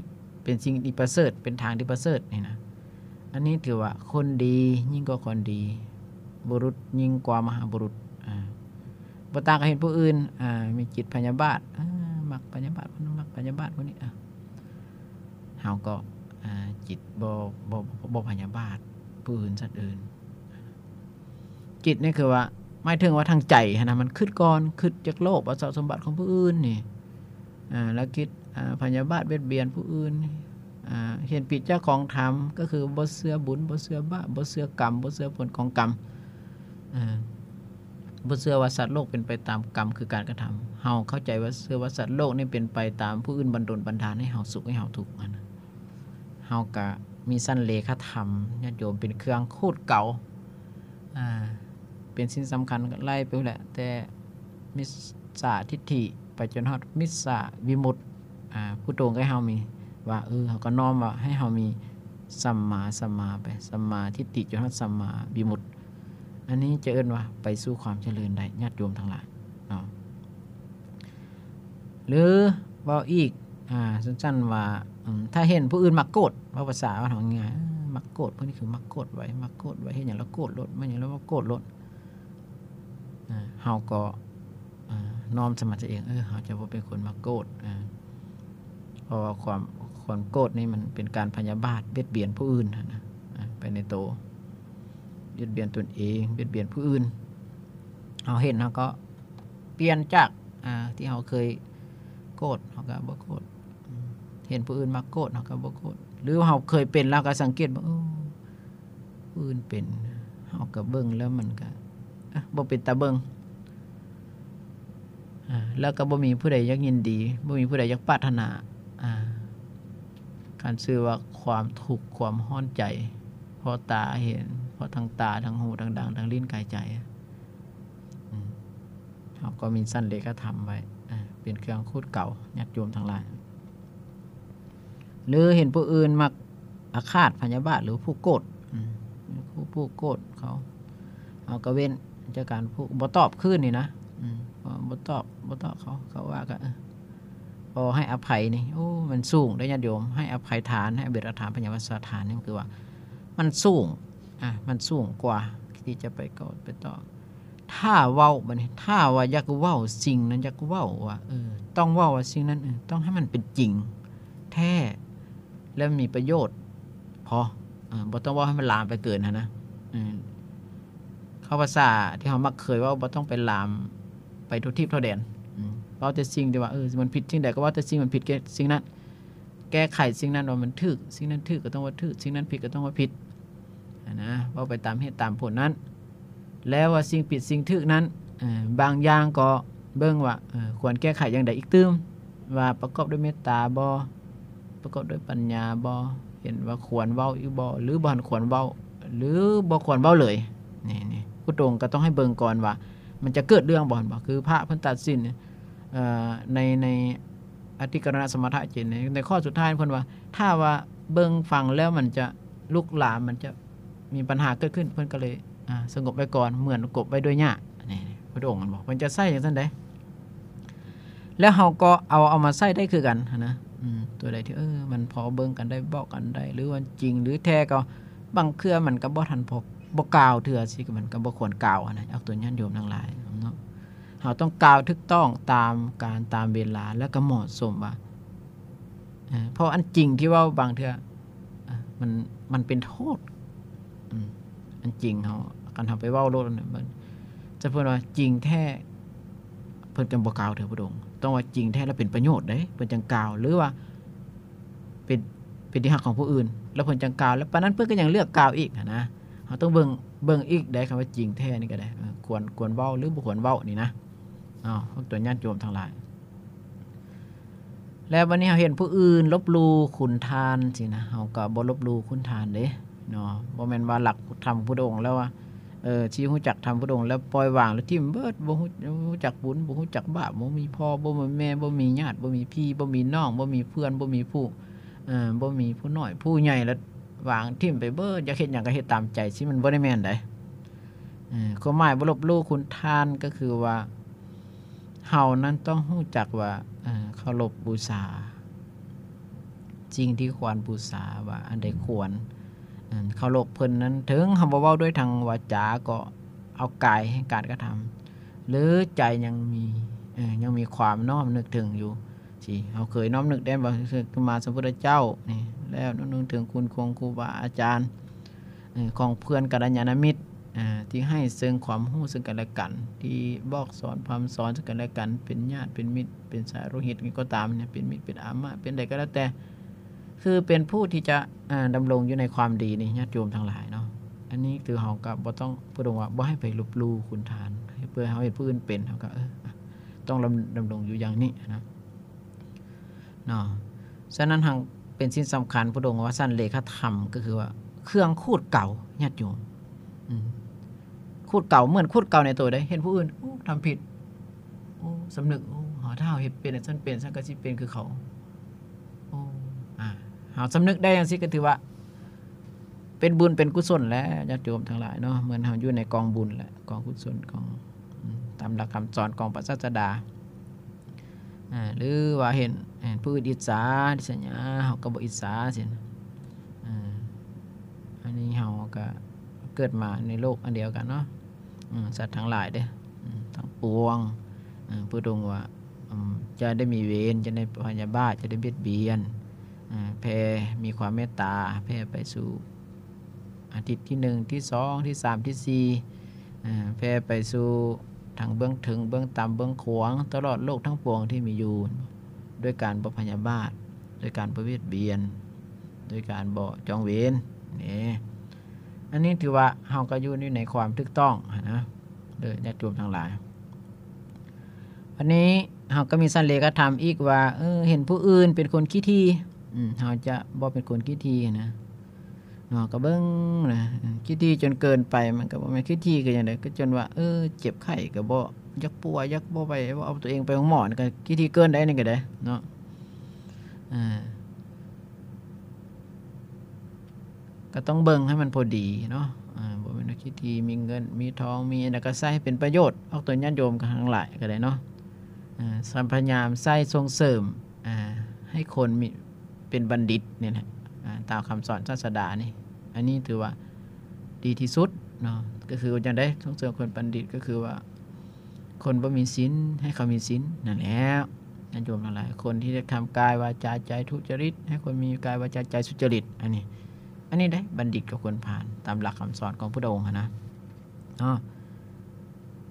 ເປັນສິ່ງທີ່ປະເສີດ ເປັນທາງທີ່ປະເສີດນີ້ນະ ອັນນີ້ຖືວ່າຄົນດີຍິ່ງກວ່າຄົນດີ ບຸລຸດຍິ່ງກວ່າມະຫາບຸລຸດ ອາ ບໍ່ຕ່າງກັບເຫັນຜູ້ອື່ນ ອາ ມີຈິດພະຍາບາດ ອາ ມັກພະຍາບາດ ມັກພະຍາບາດພວກນີ້ ອາ ເຮົາກໍ ອາ ຈິດບໍ່ ບໍ່ ບໍ່ພະຍາບາດຜູ້ອື່ນ ສັດອື່ນ ຈິດນີ້ຄືວ່າ ໝາຍເຖິງວ່າທາງໃຈຫັ້ນນະ ມັນຄິດກ່ອນ ຄິດຢາກໂລບເອົາຊັບສົມບັດຂອງຜູ້ອື່ນນີ້ ອາ ແລ້ວຄິດ ອາ ພະຍາບາດບຽດບຽນຜູ້ອື່ນ ອາ ເຫັນຜິດຈາກຂອງທຳ ກໍຄືບໍ່ເຊື່ອບຸນ ບໍ່ເຊື່ອບາບ ບໍ່ເຊື່ອກຳ ບໍ່ເຊື່ອຜົນຂອງກຳ ອາ ບໍ່ເຊື່ອວ່າສັດໂລກເປັນໄປຕາມກຳ ຄືການກະທຳ ເຮົາເຂົ້າໃຈວ່າ ເຊື່ອວ່າສັດໂລກນີ້ເປັນໄປຕາມຜູ້ອື່ນບັນດົນບັນດານໃຫ້ເຮົາສຸກໃຫ້ເຮົາທຸກຫັ້ນນະ ເຮົາກະມີຊັ້ນເລຂະທຳ ຍາດໂຍມ ເປັນເຄື່ອງຂູດເກົາ ອາ ເປັນສິ່ງສຳຄັນ ໄລ່ໄປພຸ້ນແຫຼະ ແຕ່ມິດສາທິດຖິໄປຈົນຮອດມິດສາວິມຸດ ອາ ຜູ້ຕົງໃຫ້ເຮົາມີ ວ່າ ເອີ ເຮົາກໍນ້ອມວ່າໃຫ້ເຮົາມີສຳມາ ສຳມາໄປ ສຳມາທິດຖິຈົນຮອດສຳມາວິມຸດ ອັນນີ້ຈະເອີ້ນວ່າໄປສູ່ຄວາມຈະເລີນໄດ້ ຍາດໂຍມທັງຫຼາຍເນາະ. ຫຼືເວົ້າອີກ ອາ ສັ້ນໆວ່າ ອາ ຖ້າເຫັນຜູ້ອື່ນມັກໂກດ ເວົ້າພາສາບ້ານເຮົາງ່າຍໆ ມັກໂກດ ພວກນີ້ຄືມັກໂກດໄວ ມັກໂກດໄວ ເຫັນຫຍັງແລ້ວໂກດໂລດ ມາຫຍັງແລ້ວໂກດໂລດ ອາ ເຮົາກໍ ອາ ນ້ອມໃສ່ມາຕົວເອງ ເອີ ເຮົາຈະບໍ່ເປັນຄົນມັກໂກດ ອາ ເພາະວ່າຄວາມ ຄວາມໂກດນີ້ມັນເປັນການພະຍາບາດ ບຽດບຽນຜູ້ອື່ນຫັ້ນນະ ອາ ໄປໃນໂຕ ບຽດບຽນຕົນເອງ ບຽດບຽນຜູ້ອື່ນ ເຮົາເຫັນເຮົາກໍ ປ່ຽນຈາກ ອາ ທີ່ເຮົາເຄີຍໂກດ ເຮົາກໍບໍ່ໂກດ ເຫັນຜູ້ອື່ນມັກໂກດ ເຮົາກໍບໍ່ໂກດ ຫຼືເຮົາເຄີຍເປັນ ເຮົາກໍສັງເກດວ່າ ເອີ ຜູ້ອື່ນເປັນ ເຮົາກໍເບິ່ງແລ້ວມັນກໍ ອະ ບໍ່ເປັນຕາເບິ່ງ ອາ ແລ້ວກໍບໍ່ມີຜູ້ໃດຢາກຍິນດີ ບໍ່ມີຜູ້ໃດຢາກປາດຖະໜາ ອາ ຄັນຊື່ວ່າຄວາມທຸກ ຄວາມຮ້ອນໃຈ ເພາະຕາເຫັນ ເພາະທັງຕາ ທັງຫູ ທັງດັງ ທັງລີ້ນ ກາຍ ໃຈ ອາ ເຮົາກໍມີຊັ້ນເລຂະທຳໄວ້ ອາ ເປັນເຄື່ອງຂູດເກົາ ຍາດໂຍມທັງຫຼາຍ ຫຼືເຫັນຜູ້ອື່ນມັກອາຄາດພະຍາບາດ ຫຼືຜູ້ໂກດ ອາ ຜູ້ ຜູ້ໂກດເຂົາ ເຮົາກໍເວັ້ນຈາກການຜູ້ ບໍ່ຕອບຄືນນີ້ນະ ອາ ບໍ່ຕອບ ບໍ່ຕອບເຂົາ ເຂົາວ່າກໍ ເອີ ກໍໃຫ້ອະໄພນີ້ ໂອ້ ມັນສູງເດ້ຍາດໂຍມ ໃຫ້ອະໄພທານ ໃຫ້ອະເບກຖານ ພະຍາບາດສະຖານນີ້ ມັນຄືວ່າ ມັນສູງ ອາ ມັນສູງກວ່າທີ່ຈະໄປໂກດໄປຕອບ ຖ້າເວົ້າ ບາດນີ້ ຖ້າວ່າຢາກເວົ້າສິ່ງນັ້ນ ຢາກເວົ້າວ່າ ເອີ ຕ້ອງເວົ້າວ່າສິ່ງນັ້ນ ເອີ ຕ້ອງໃຫ້ມັນເປັນຈິງແທ້ ແລະ ມີປະໂຫຍດພໍ ເອີ ບໍ່ຕ້ອງເວົ້າໃຫ້ມັນລາມໄປເກີນຫັ້ນນະ ເອີ ເວົ້າພາສາທີ່ເຮົາມັກເຄີຍເວົ້າ ບໍ່ຕ້ອງໄປລາມໄປທົ່ວທີບທົ່ວແດນ ເວົ້າແຕ່ສິ່ງທີ່ວ່າ ເອີ ມັນຜິດສິ່ງໃດກໍເວົ້າແຕ່ສິ່ງມັນຜິດ ແກ້ ສິ່ງນັ້ນ ແກ້ໄຂສິ່ງນັ້ນວ່າມັນຖືກ ສິ່ງນັ້ນຖືກກໍຕ້ອງວ່າຖືກ ສິ່ງນັ້ນຜິດກໍຕ້ອງວ່າຜິດ ຫັ້ນນະ ເວົ້າໄປຕາມເຫດຕາມຜົນນັ້ນ ແລ້ວວ່າສິ່ງຜິດສິ່ງຖືກນັ້ນ ເອີ ບາງຢ່າງກໍເບິ່ງວ່າ ເອີ ຄວນແກ້ໄຂຢ່າງໃດອີກຕື່ມ ວ່າປະກອບດ້ວຍເມດຕາບໍ່ ປະກອບດ້ວຍປັນຍາບໍ່ ເຫັນວ່າຄວນເວົ້າອີກບໍ່ ຫຼືບໍ່ທັນຄວນເວົ້າ ຫຼືບໍ່ຄວນເວົ້າເລີຍ ນີ້ ນີ້ ຜູ້ຕົງກໍຕ້ອງໃຫ້ເບິ່ງກ່ອນວ່າ ມັນຈະເກີດເລື່ອງບໍ່ ເຫັນບໍ່ ຄືພະເພິ່ນຕັດສິນ ເອີ ໃນ ໃນອະທິກະລະນະສະມະຖະເຈນ ໃນ ໃນຂໍ້ສຸດທ້າຍເພິ່ນວ່າ ຖ້າວ່າເບິ່ງຟັງແລ້ວມັນຈະລຸກລາມ ມັນຈະມີບັນຫາເກີດຂຶ້ນ ເພິ່ນກໍເລີຍ ອາ ສະຫງົບໄວ້ກ່ອນ ເໝືອນກົບໄວ້ດ້ວຍຫຍ້າ ນີ້ ພຸດທະອົງ ເຫັນບໍ່ ເພິ່ນຈະໃຊ້ຈັ່ງຊັ້ນເດ້ ແລ້ວເຮົາກໍເອົາ ເອົາມາໃຊ້ໄດ້ຄືກັນຫັ້ນນະ ອືມ ຕົວໃດທີ່ ເອີ ມັນພໍເບິ່ງກັນໄດ້ ບອກກັນໄດ້ ຫຼືວ່າຈິງ ຫຼືແທ້ກໍ ບາງເທື່ອມັນກໍບໍ່ທັນພໍ ບໍ່ກ່າວເທື່ອ ຊິມັນກໍບໍ່ຄວນກ່າວຫັ້ນນະ ອອກຕົນຍາດໂຍມທັງຫຼາຍເນາະ ເຮົາຕ້ອງກ່າວຖືກຕ້ອງຕາມການຕາມເວລາ ແລ້ວກໍເໝາະສົມວ່າ ເອີ ເພາະອັນຈິງທີ່ເວົ້າບາງເທື່ອ ອາ ມັນ ມັນເປັນໂທດ ອືມ ອັນຈິງເຮົາ ຄັນເຮົາໄປເວົ້າໂລດ ມັນ ຈະເພິ່ນວ່າຈິງແທ້ ເພິ່ນຈັ່ງບໍ່ກ່າວເທື່ອ ພະອົງ ຕ້ອງວ່າຈິງແທ້ແລ້ວເປັນປະໂຫຍດເດ້ ເພິ່ນຈັ່ງກ່າວ ຫຼືວ່າເປັນ ເປັນທີ່ຮັກຂອງຜູ້ອື່ນ ແລ້ວເພິ່ນຈັ່ງກ່າວ ແລ້ວປານນັ້ນເພິ່ນກໍຍັງເລືອກກ່າວອີກຫັ້ນນະ. ເຮົາຕ້ອງເບິ່ງ ເບິ່ງອີກໄດ້ ຄຳວ່າຈິງແທ້ນີ້ກໍໄດ້ ເອີ ຄວນ ຄວນເວົ້າ ຫຼື ບໍ່ຄວນເວົ້ານີ້ນະ ເນາະ ພວກຕົວຍາດໂຍມທັງຫຼາຍ. ແລ້ວບັດນີ້ເຮົາເຫັນຜູ້ອື່ນລົບຫຼູ່ຄຸນທ່ານຊີ້ນະ ເຮົາກໍບໍ່ລົບຫຼູ່ຄຸນທ່ານເດ້ເນາະ. ບໍ່ແມ່ນວ່າຫຼັກທຳພຸດທະອົງແລ້ວວ່າ ເອີ ຊິຮູ້ຈັກທຳພຸດທະອົງແລ້ວປ່ອຍວາງ ແລ້ວຖິ້ມເບິດ ບໍ່ຮູ້ ບໍ່ຮູ້ຈັກບຸນ ບໍ່ຮູ້ຈັກບາບ ບໍ່ມີພໍ່ ບໍ່ມີແມ່ ບໍ່ມີຍາດ ບໍ່ມີພີ່ ບໍ່ມີນ້ອງ ບໍ່ມີເພື່ອນ ບໍ່ມີຜູ້ ເອີ ບໍ່ມີຜູ້ນ້ອຍຜູ້ໃຫຍ່ ແລ້ວວາງຖິ້ມໄປເບິດ ຢາກເຮັດຫຍັງກໍເຮັດຕາມໃຈ ຊິມັນບໍ່ໄດ້ແມ່ນໃດ. ເອີ ຄວາມໝາຍບໍ່ລົບຫຼູ່ຄຸນທ່ານ ກໍຄືວ່າ ເຮົານັ້ນຕ້ອງຮູ້ຈັກວ່າ ເອີ ເຄົາລົບບູຊາ ສິ່ງທີ່ຄວນບູຊາ ວ່າອັນໃດຄວນ ເອີ ເຄົາລົບເພິ່ນນັ້ນ ເຖິງເຮົາບໍ່ເວົ້າດ້ວຍທາງວາຈາ ກໍເອົາກາຍແຫ່ງການກະທຳ ຫຼື ໃຈຍັງມີ ເອີ ຍັງມີຄວາມນ້ອມນຶກເຖິງຢູ່ ທີ່ເຮົາເຄີຍນ້ອມນຶກໄດ້ບໍ່ ຄືສຳມາສຳພຸດທະເຈົ້ານີ້ ແລ້ວນ້ອມນຶກເຖິງຄຸນຂອງຄູບາອາຈານ ເອີ ຂອງເພື່ອນກັນລະຍານະມິດ ເອີ ທີ່ໃຫ້ເຊິ່ງຄວາມຮູ້ເຊິ່ງກັນແລະກັນ ທີ່ບອກສອນພຳສອນເຊິ່ງກັນແລະກັນ ເປັນຍາດເປັນມິດ ເປັນສາໂລຫິດຫຍັງກໍຕາມເນຍ ເປັນມິດເປັນອາມະ ເປັນໃດກໍແລ້ວແຕ່ ຄືເປັນຜູ້ທີ່ຈະ ເອີ ດຳລົງຢູ່ໃນຄວາມດີນີ້ ຍາດໂຍມທັງຫຼາຍເນາະ. ອັນນີ້ຄືເຮົາກໍບໍ່ຕ້ອງ ຜູ້ດງວ່າບໍ່ໃຫ້ໄປລົບຫຼູ່ຄຸນທ່ານ ເພື່ອເຮົາເຫັນຜູ້ອື່ນເປັນ ເຮົາກໍ ເອີ ຕ້ອງດຳ ດຳລົງຢູ່ຢ່າງນີ້ນະ ເນາະ. ສະນັ້ນຫັ້ນເປັນສິ່ງສຳຄັນ ພຸດທະອົງວ່າສັນເລຂະທຳ ກໍຄືວ່າເຄື່ອງຂູດເກົາ ຍາດໂຍມ ອືມ ຂູດເກົາ ເໝືອນຂູດເກົາໃນໂຕເດ້ ເຫັນຜູ້ອື່ນ ໂອ້ ທຳຜິດ ໂອ້ ສຳນຶກ ໂອ້ ຖ້າເຮົາເຮັດເປັນ ຊັ້ນເປັນ ຊັ້ນກໍຊິເປັນຄືເຂົາ ໂອ້ ອາ ເຮົາສຳນຶກໄດ້ຈັ່ງຊີ້ ກໍຖືວ່າເປັນບຸນເປັນກຸສົນແລ້ວ ຍາດໂຍມທັງຫຼາຍເນາະ. ເໝືອນເຮົາຢູ່ໃນກອງບຸນແຫຼະ ກອງກຸສົນ ກອງ ອືມ ຕາມຫຼັກຄຳສອນຂອງພະສາສະດາ. ອາ ຫຼືວ່າເຫັນ ເຫັນຜູ້ອື່ນອິດສາລິດສະຫຍາ ເຮົາກໍບໍ່ອິດສາຊີ້ນະ. ອາ ອັນນີ້ເຮົາກໍເກີດມາໃນໂລກອັນດຽວກັນເນາະ ອາ ສັດທັງຫຼາຍເດ້ ອາ ທັງປວງ ອາ ພະອົງວ່າ ອາ ຢ່າໄດ້ມີເວນ ຢ່າໄດ້ພະຍາບາດ ຢ່າໄດ້ບຽດບຽນ ອາ ແຜ່ມີຄວາມເມດຕາ ແຜ່ໄປສູ່ ອາ ທິດທີໜຶ່ງ ທີສອງ ທີສາມ ທີສີ່ ອາ ແຜ່ໄປສູ່ທັງເບື້ອງເທິງ ເບື້ອງຕ່ຳ ເບື້ອງຂວາງ ຕະຫຼອດໂລກທັງປວງທີ່ມີຢູ່ ໂດຍການບໍ່ພະຍາບາດ ໂດຍການບໍ່ບຽດບຽນ ໂດຍການບໍ່ຈອງເວນເດ້. ອັນນີ້ຖືວ່າເຮົາກໍຢູ່ ຢູ່ໃນຄວາມຖືກຕ້ອງຫັ້ນນະ ເດີຍາດໂຍມທັງຫຼາຍ. ອັນນີ້ເຮົາກໍມີສັນເລຂະທຳອີກວ່າ ເອີ ເຫັນຜູ້ອື່ນເປັນຄົນຂີ້ຖີ່ ອືມ ເຮົາຈະບໍ່ເປັນຄົນຂີ້ຖີ່ນະ ເນາະ ກໍເບິ່ງນະ ອາ ຂີ້ຖີ່ຈົນເກີນໄປ ມັນກໍບໍ່ແມ່ນຂີ້ຖີ່ຄືຫຍັງໃດ ກໍຈົນວ່າ ເອີ ເຈັບໄຂ້ກໍບໍ່ຢາກປົວ ຢາກບໍ່ໄປ ບໍ່ເອົາຕົວເອງໄປໂຮງໝໍ ນີ້ກໍຂີ້ຖີ່ເກີນໄດ໋ ນີ້ກໍໄດ້ເນາະ ອາ ກໍຕ້ອງເບິ່ງໃຫ້ມັນພໍດີເນາະ ອາ ບໍ່ແມ່ນວ່າຂີ້ຖີ່ ມີເງິນ ມີທອງ ມີອັນໃດກໍໃຊ້ໃຫ້ເປັນປະໂຫຍດ ອອກຕົນຍາດໂຍມກັນທັງຫຼາຍກໍໄດ້ເນາະ ອາ ພະຍາຍາມໃຊ້ສົ່ງເສີມ ອາ ໃຫ້ຄົນມີ ເປັນບັນດິດນີ້ແຫຼະ ອາ ຕາມຄຳສອນສາສະດານີ້ ອັນນີ້ຖືວ່າດີທີ່ສຸດເນາະ ກໍຄືວ່າຈັ່ງໃດ ສົ່ງເສີມຄົນບັນດິດ ກໍຄືວ່າຄົນບໍ່ມີສິນ ໃຫ້ເຂົາມີສິນ ນັ້ນແຫຼະ ຍາດໂຍມທັງຫຼາຍ ຄົນທີ່ໄດ້ທຳກາຍ ວາຈາ ໃຈທຸຈະລິດ ໃຫ້ຄົນມີກາຍ ວາຈາ ໃຈສຸຈະລິດ ອັນນີ້ ອັນນີ້ເດ້ ບັນດິດກັບຄົນພານ ຕາມຫຼັກຄຳສອນຂອງພຸດທະອົງຫັ້ນນະ ເນາະ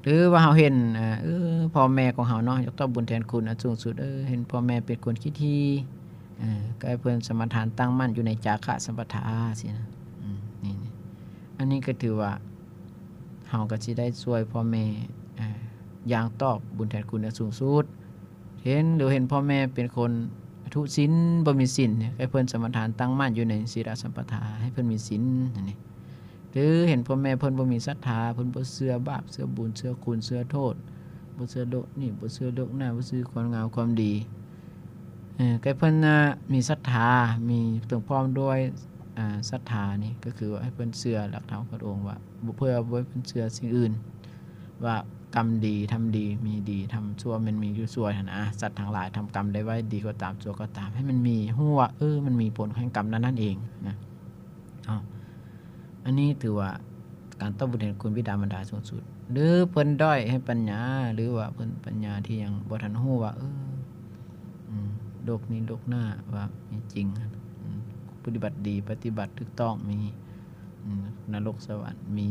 ຫຼືວ່າເຮົາເຫັນ ເອີ ເອີ ພໍ່ແມ່ຂອງເຮົາເນາະ ຢາກຕອບບຸນແທນຄຸນອັນສູງສຸດ ເອີ ເຫັນພໍ່ແມ່ເປັນຄົນຂີ້ຖີ່ ເອີ ກໍໃຫ້ເພິ່ນສະມາທານຕັ້ງໝັ້ນຢູ່ໃນຈາຄະສຳປະທາຊີ້ນະ ອືມ ນີ້ ນີ້ ອັນນີ້ກໍຖືວ່າເຮົາກໍຊິໄດ້ຊ່ວຍພໍ່ແມ່ ເອີ ຢ່າງຕອບບຸນແທນຄຸນອັນສູງສຸດ. ເຫັນ ຫຼືເຫັນພໍ່ແມ່ເປັນຄົນທຸສິນ ບໍ່ມີສິນ ໃຫ້ເພິ່ນສະມາທານຕັ້ງໝັ້ນຢູ່ໃນສີລະສຳປະທາ ໃຫ້ເພິ່ນມີສິນ ອັນນີ້ ຫຼືເຫັນພໍ່ແມ່ເພິ່ນບໍ່ມີສັດທາ ເພິ່ນບໍ່ເຊື່ອບາບ ເຊື່ອບຸນ ເຊື່ອຄຸນ ເຊື່ອໂທດ ບໍ່ເຊື່ອໂລກນີ້ ບໍ່ເຊື່ອໂລກໜ້າ ບໍ່ເຊື່ອຄວາມງາມຄວາມດີ ເອີ ໃຫ້ເພິ່ນນະມີສັດທາ ມີ ເຖິງພ້ອມດ້ວຍ ອາ ສັດທານີ້ ກໍຄືວ່າໃຫ້ເພິ່ນເຊື່ອຫຼັກທຳຂອງພະອົງວ່າ ບໍ່ ເພື່ອບໍ່ໃຫ້ເພິ່ນເຊື່ອສິ່ງອື່ນ ວ່າກຳດີທຳດີ ມີດີທຳຊົ່ວ ແມ່ນມີຢູ່ຊົ່ວຫັ້ນນະ. ສັດທັງຫຼາຍທຳກຳໃດໄວ້ ດີກໍຕາມ ຊົ່ວກໍຕາມ ໃຫ້ມັນມີ ຮູ້ວ່າ ເອີ ມັນມີຜົນແຫ່ງກຳນັ້ນໆເອງນະ ເນາະ. ອັນນີ້ຖືວ່າການຕອບບຸນແທນຄຸນບິດາມານດາສູງສຸດ ຫຼືເພິ່ນດ້ອຍໃຫ້ປັນຍາ ຫຼືວ່າເພິ່ນປັນຍາທີ່ຍັງບໍ່ທັນຮູ້ວ່າ ເອີ ອືມ ໂລກນີ້ໂລກໜ້າວ່າມີຈິງ ອືມ ປະຕິບັດດີ ປະຕິບັດຖືກຕ້ອງ ມີ ອືມ ນະລົກສະຫວັນ ມີ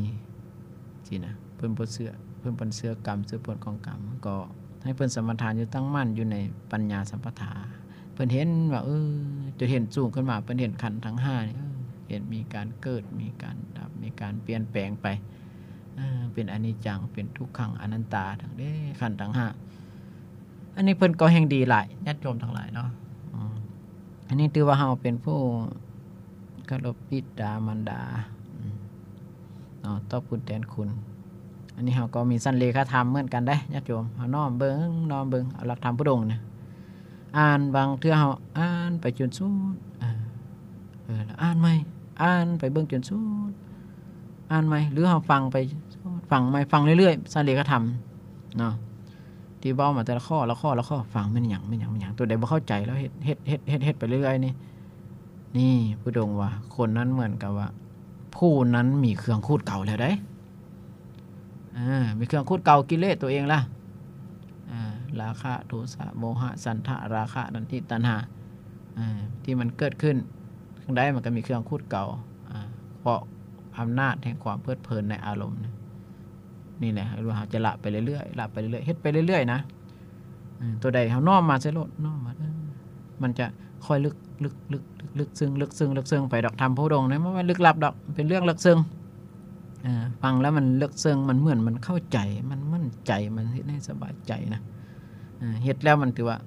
ຊີ້ນະ ເພິ່ນບໍ່ເຊື່ອ ເພິ່ນບໍ່ເຊື່ອກຳ ເຊື່ອຜົນຂອງກຳ ກໍໃຫ້ເພິ່ນສະມາທານຢູ່ ຕັ້ງໝັ້ນຢູ່ໃນປັນຍາສຳປະທາ ເພິ່ນເຫັນວ່າ ເອີ ຈົນເຫັນສູງຂຶ້ນມາ ເພິ່ນເຫັນຂັນທັງຫ້ານີ້ ເອີ ເຫັນມີການເກີດ ມີການດັບ ມີການປ່ຽນແປງໄປ ເປັນອະນິດຈັງ ເປັນທຸກຂັງ ອະນັດຕາ ທັງເດ້ ຂັນທັງຫ້າ. ອັນນີ້ເພິ່ນກໍແຮ່ງດີຫຼາຍ ຍາດໂຍມທັງຫຼາຍເນາະ. ອັນນີ້ຖືວ່າເຮົາເປັນຜູ້ເຄົາລົບບິດາມານດາເນາະ ຕອບຄຸນແທນຄຸນ. ອັນນີ້ເຮົາກໍມີສັນເລຂະທຳເໝືອນກັນເດ້ຍາດໂຍມ. ເຮົານ້ອມເບິ່ງ ນ້ອມເບິ່ງ ເອົາຫຼັກທຳພຸດອົງນະ ອ່ານ ບາງເທື່ອເຮົາອ່ານໄປຈົນສຸດ ເອີ ແລ້ວອ່ານໃໝ່ ອ່ານໄປເບິ່ງຈົນສຸດ ອ່ານໃໝ່ ຫຼືເຮົາຟັງໄປ ຟັງໃໝ່ ຟັງເລື້ອຍໆ ສັນເລຂະທຳເນາະ ທີ່ເວົ້າມາແຕ່ລະຂໍ້ ລະຂໍ້ ລະຂໍ້ ຟັງແມ່ນຫຍັງ ແມ່ນຫຍັງ ແມ່ນຫຍັງ ຕົວໃດບໍ່ເຂົ້າໃຈ ແລ້ວເຮັດ ເຮັດ ເຮັດ ເຮັດ ເຮັດໄປເລື້ອຍໆ ນີ້ ນີ້ ພຸດອົງວ່າ ຄົນນັ້ນເໝືອນກັບວ່າ ຜູ້ນັ້ນມີເຄື່ອງຂູດເກົ່າແລ້ວໃດ ເອີ ມີເຄື່ອງຂູດເກົ່າ ກິເລດຕົວເອງລະ ເອີ ລາຄະ ໂທສະ ໂມຫະ ສັນທະ ລາຄະ ນັນທິ ຕັນຫາ ເອີ ທີ່ມັນເກີດຂຶ້ນ ຈັ່ງໃດມັນກໍມີເຄື່ອງຂູດເກົ່າ ເພາະອຳນາດແຫ່ງຄວາມເພີດເພີນໃນອາລົມ ນີ້ແຫຼະ ເຮົາຈະລະໄປເລື້ອຍໆ ລະໄປເລື້ອຍໆ ເຮັດໄປເລື້ອຍໆ ນະ. ເອີ ຕົວໃດເຮົານ້ອມມາໃສ່ໂລດ ນ້ອມມາ ເອີ ມັນຈະຄ່ອຍເລິກ ເລິກ ເລິກ ເລິກ ເລິກເຊິ່ງ ເລິກເຊິ່ງ ເລິກເຊິ່ງໄປດອກ. ທຳໂພດົງນີ້ມັນບໍ່ແມ່ນລຶກລັບດອກ ເປັນເລື່ອງເລິກເຊິ່ງ. ເອີ ຟັງແລ້ວມັນເລິກເຊິ່ງ ມັນເໝືອນມັນເຂົ້າໃຈ ມັນໝັ້ນໃຈ ມັນເຮັດໃຫ້ສະບາຍໃຈນະ. ເອີ ເຮັດແລ້ວມັນຖືວ່າ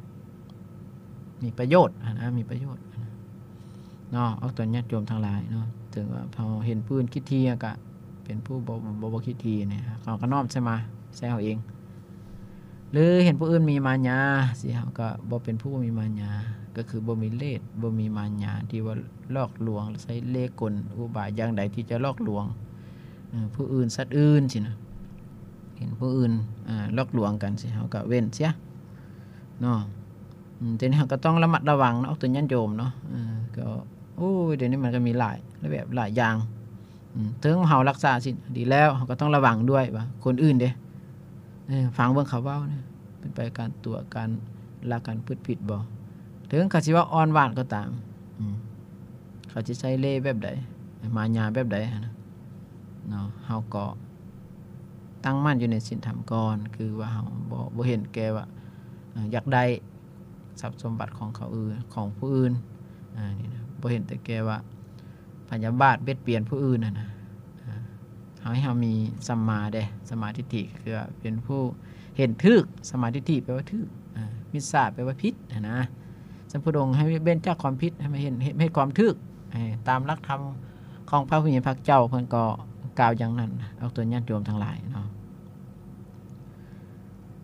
ມີປະໂຫຍດຫັ້ນນະ ມີປະໂຫຍດຫັ້ນນະເນາະ. ອອກຕົນຍາດໂຍມທັງຫຼາຍເນາະ ເຖິງວ່າເຮົາເຫັນຜູ້ອື່ນຂີ້ຖີ່ ເຮົາກະເປັນຜູ້ບໍ່ ບໍ່ ບໍ່ຂີ້ຖີ່ນີ້ ເຮົາກະນ້ອມໃສ່ມາ ໃສ່ເຮົາເອງ. ຫຼືເຫັນຜູ້ອື່ນມີມາຍາຊີ້ ເຮົາກໍບໍ່ເປັນຜູ້ມີມາຍາ ກໍຄືບໍ່ມີເລດ ບໍ່ມີມາຍາທີ່ວ່າຫຼອກລວງ ໃຊ້ເລ່ກົນອຸບາຍຢ່າງໃດທີ່ຈະຫຼອກລວງ ເອີ ຜູ້ອື່ນ ສັດອື່ນຊີ້ນະ. ເຫັນຜູ້ອື່ນ ເອີ ຫຼອກລວງກັນຊີ້ ເຮົາກໍເວັ້ນເສຍເນາະ. ອືມ ແຕ່ນີ້ເຮົາກໍຕ້ອງລະມັດລະວັງເນາະ ອອກຕົນຍາດໂຍມເນາະ. ເອີ ກໍ ໂອ້ຍ ດຽວນີ້ມັນກໍມີຫຼາຍ ຫຼາຍແບບຫຼາຍຢ່າງ. ອືມ ເຖິງເຮົາລັກສາສິນດີແລ້ວ ເຮົາກໍຕ້ອງລະວັງດ້ວຍວ່າຄົນອື່ນເດ້ ເອີ ຟັງເບິ່ງເຂົາເວົ້ານະ ເປັນໄປການຕົວະ ການລະ ການປຶດຜິດບໍ່. ເຖິງເຂົາຊິເວົ້າອ່ອນຫວານກໍຕາມ ອືມ ເຂົາຊິໃຊ້ເລ່ແບບໃດ ມາຍາແບບໃດຫັ້ນນະເນາະ ເຮົາກໍຕັ້ງໝັ້ນຢູ່ໃນສິນທຳກ່ອນ ຄືວ່າເຮົາບໍ່ ບໍ່ເຫັນແກ່ວ່າ ເອີ ຢາກໄດ້ ຊັບສົມບັດຂອງເຂົາອື່ນ ຂອງຜູ້ອື່ນ ອາ ນີ້ນະ ບໍ່ເຫັນແຕ່ແກ່ວ່າພະຍາບາດບຽດບຽນຜູ້ອື່ນຫັ້ນນະ. ອາ ເຮົາໃຫ້ເຮົາມີສຳມາເດ້ ສຳມາທິດຖິ ຄືວ່າເປັນຜູ້ເຫັນຖືກ ສຳມາທິດຖິແປວ່າຖືກ ອາ ມິດສາແປວ່າຜິດຫັ້ນນະ. ສຳພຸດອົງໃຫ້ເວັ້ນຈາກຄວາມຜິດ ໃຫ້ມາເຫັນ ເຮັດ ເຮັດຄວາມຖືກ ໃຫ້ຕາມຫຼັກທຳຂອງພະຜູ້ມີພະເຈົ້າ ເພິ່ນກໍກ່າວຢ່າງນັ້ນ ອອກຕົນຍາດໂຍມທັງຫຼາຍເນາະ.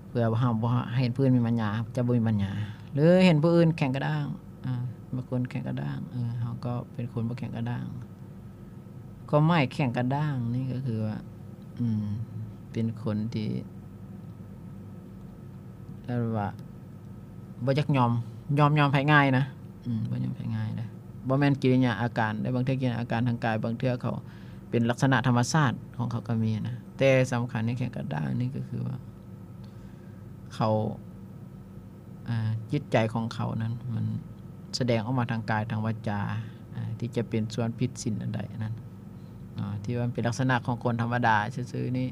ເພື່ອວ່າເຮົາບໍ່ໃຫ້ເຫັນຜູ້ອື່ນມີມາຍາ ຈະບໍ່ມີມາຍາ ຫຼືເຫັນຜູ້ອື່ນແຂງກະດ້າງ ອາ ບາງຄົນແຂງກະດ້າງ ເອີ ເຮົາກໍເປັນຄົນບໍ່ແຂງກະດ້າງ. ຄວາມໝາຍແຂງກະດ້າງນີ້ກໍຄືວ່າ ອືມ ເປັນຄົນທີ່ ເອີ້ນວ່າ ບໍ່ຢາກຍອມ ຍອມ ຍອມໃຜງ່າຍນະ ອືມ ບໍ່ຍອມໃຜງ່າຍເດ້ ບໍ່ແມ່ນກິລິຍາອາການເດ້. ບາງເທື່ອກິລິຍາອາການທາງກາຍ ບາງເທື່ອເຂົາເປັນລັກສະນະທຳມະຊາດຂອງເຂົາກໍມີນະ ແຕ່ສຳຄັນໃນແຂງກະດ້າງນີ້ກໍຄືວ່າ ເຂົາ ອາ ຈິດໃຈຂອງເຂົານັ້ນ ມັນສະແດງອອກມາທາງກາຍ ທາງວາຈາ ອາ ທີ່ຈະເປັນສ່ວນຜິດສິນອັນໃດອັນນັ້ນເນາະ ທີ່ວ່າມັນເປັນລັກສະນະຂອງຄົນທຳມະດາຊື່ໆນີ້.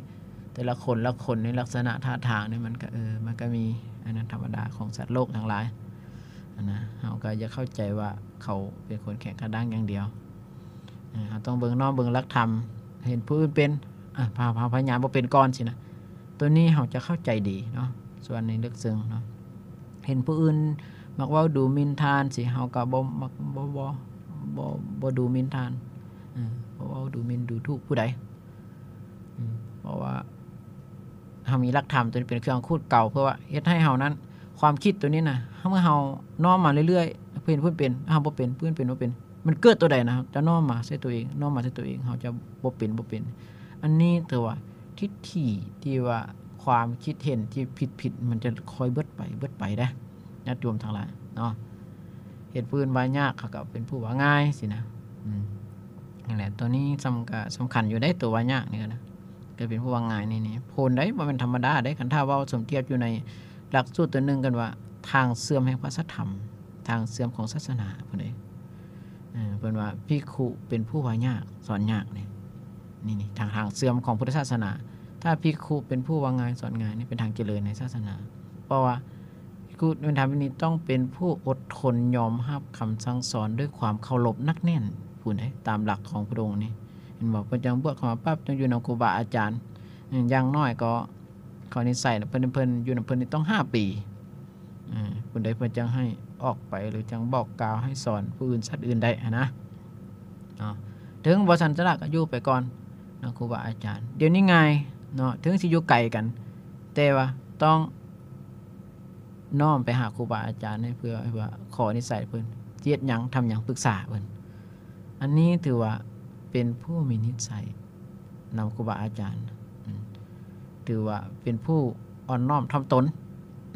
ແຕ່ລະຄົນລະຄົນໃນລັກສະນະທ່າທາງນີ້ ມັນກໍ ເອີ ມັນກໍມີອັນນັ້ນ ທຳມະດາຂອງສັດໂລກທັງຫຼາຍຫັ້ນນະ. ເຮົາກໍຢ່າເຂົ້າໃຈວ່າເຂົາເປັນຄົນແຂງກະດ້າງຢ່າງດຽວ ເອີ ເຮົາຕ້ອງເບິ່ງນ້ອມເບິ່ງຫຼັກທຳ ເຫັນຜູ້ອື່ນເປັນ ອາ ພາ ພາ ພະຍາບໍ່ເປັນກ່ອນຊີ້ນະ. ໂຕນີ້ເຮົາຈະເຂົ້າໃຈດີເນາະ ສ່ວນໃນເລິກເຊິ່ງເນາະ. ເຫັນຜູ້ອື່ນມັກເວົ້າດູໝິ່ນທ່ານຊີ້ ເຮົາກໍບໍ່ມັກ ບໍ່ ບໍ່ ບໍ່ ບໍ່ດູໝິ່ນທ່ານ ເອີ ບໍ່ເວົ້າດູໝິ່ນດູຖູກຜູ້ໃດ ອືມ ເພາະວ່າເຮົາມີຫຼັກທຳໂຕນີ້ເປັນເຄື່ອງຂູດເກົ່າ ເພື່ອວ່າເຮັດໃຫ້ເຮົານັ້ນ ຄວາມຄິດໂຕນີ້ນະ ເມື່ອເຮົານ້ອມມາເລື້ອຍໆ ເຫັນຜູ້ອື່ນເປັນ ເຮົາບໍ່ເປັນ ຜູ້ອື່ນເປັນບໍ່ເປັນ ມັນເກີດໂຕໃດນະ ເຮົາຈະນ້ອມມາໃສ່ໂຕເອງ ນ້ອມມາໃສ່ໂຕເອງ ເຮົາຈະບໍ່ເປັນ ບໍ່ເປັນ. ອັນນີ້ຖືວ່າທິດຖິທີ່ວ່າຄວາມຄິດເຫັນທີ່ຜິດໆ ມັນຈະຄ່ອຍເບິດໄປ ເບິດໄປເດ້ຍາດໂຍມທັງຫຼາຍເນາະ. ເຮັດຜູ້ອື່ນວ່າຍາກ ເຂົາກໍເປັນຜູ້ວ່າງ່າຍຊີ້ນະ ອືມ ນັ້ນແຫຼະ ໂຕນີ້ສຳ ກໍສຳຄັນຢູ່ເດ້ ໂຕວ່າຍາກນີ້ນະ ກໍເປັນຜູ້ວ່າງ່າຍນີ້ ນີ້ໂພນໃດ ບໍ່ແມ່ນທຳມະດາເດ້. ຄັນຖ້າເວົ້າສົມທຽບຢູ່ໃນຫຼັກສູດໂຕໜຶ່ງ ເອີ້ນວ່າທາງເຊື່ອມແຫ່ງພະສັດທຳ ທາງເຊື່ອມຂອງສາສະໜາພຸ້ນເດ້. ເອີ ເພິ່ນວ່າພິກຂຸເປັນຜູ້ວ່າຍາກ ສອນຍາກນີ້ ນີ້ ນີ້ ທາງ ທາງເຊື່ອມຂອງພຸດທະສາສະໜາ. ຖ້າພິກຂຸເປັນຜູ້ວ່າງ່າຍ ສອນງ່າຍ ນີ້ເປັນທາງຈະເລີນໃນສາສະໜາ. ເພາະວ່າພິກຂຸເປັນທຳນີ້ ຕ້ອງເປັນຜູ້ອົດທົນຍອມຮັບຄຳສັ່ງສອນດ້ວຍຄວາມເຄົາລົບໜັກແໜ້ນ ພຸ້ນເດ້ ຕາມຫຼັກຂອງພຸດອົງນີ້ ເຫັນບໍ່? ເພິ່ນຈັ່ງບວດເຂົ້າມາປັບ ຈັ່ງຢູ່ນຳຄູບາອາຈານ ອືມ ຢ່າງໜ້ອຍກໍ ເຂົານິໄສເພິ່ນ ເພິ່ນຢູ່ນຳເພິ່ນນີ້ຕ້ອງຫ້າປີ ອືມ ພຸ້ນເດ້ ເພິ່ນຈັ່ງໃຫ້ອອກໄປ ຫຼືຈັ່ງບອກກ່າວໃຫ້ສອນຜູ້ອື່ນສັດອື່ນໄດ້ຫັ້ນນະເນາະ. ເຖິງບໍ່ສັນຈະລະກໍຢູ່ໄປກ່ອນນຳຄູບາອາຈານ ດຽວນີ້ງ່າຍເນາະ ເຖິງຊິຢູ່ໄກກັນ ແຕ່ວ່າຕ້ອງນ້ອມໄປຫາຄູບາອາຈານໃຫ້ເພື່ອ ເພື່ອຂໍນິໄສເພິ່ນ ຊິເຮັດຫຍັງ ທຳຫຍັງ ປຶກສາເພິ່ນ. ອັນນີ້ຖືວ່າເປັນຜູ້ມີນິໄສນຳຄູບາອາຈານ ອືມ ຖືວ່າເປັນຜູ້ອ່ອນນ້ອມຖ່ອມຕົນ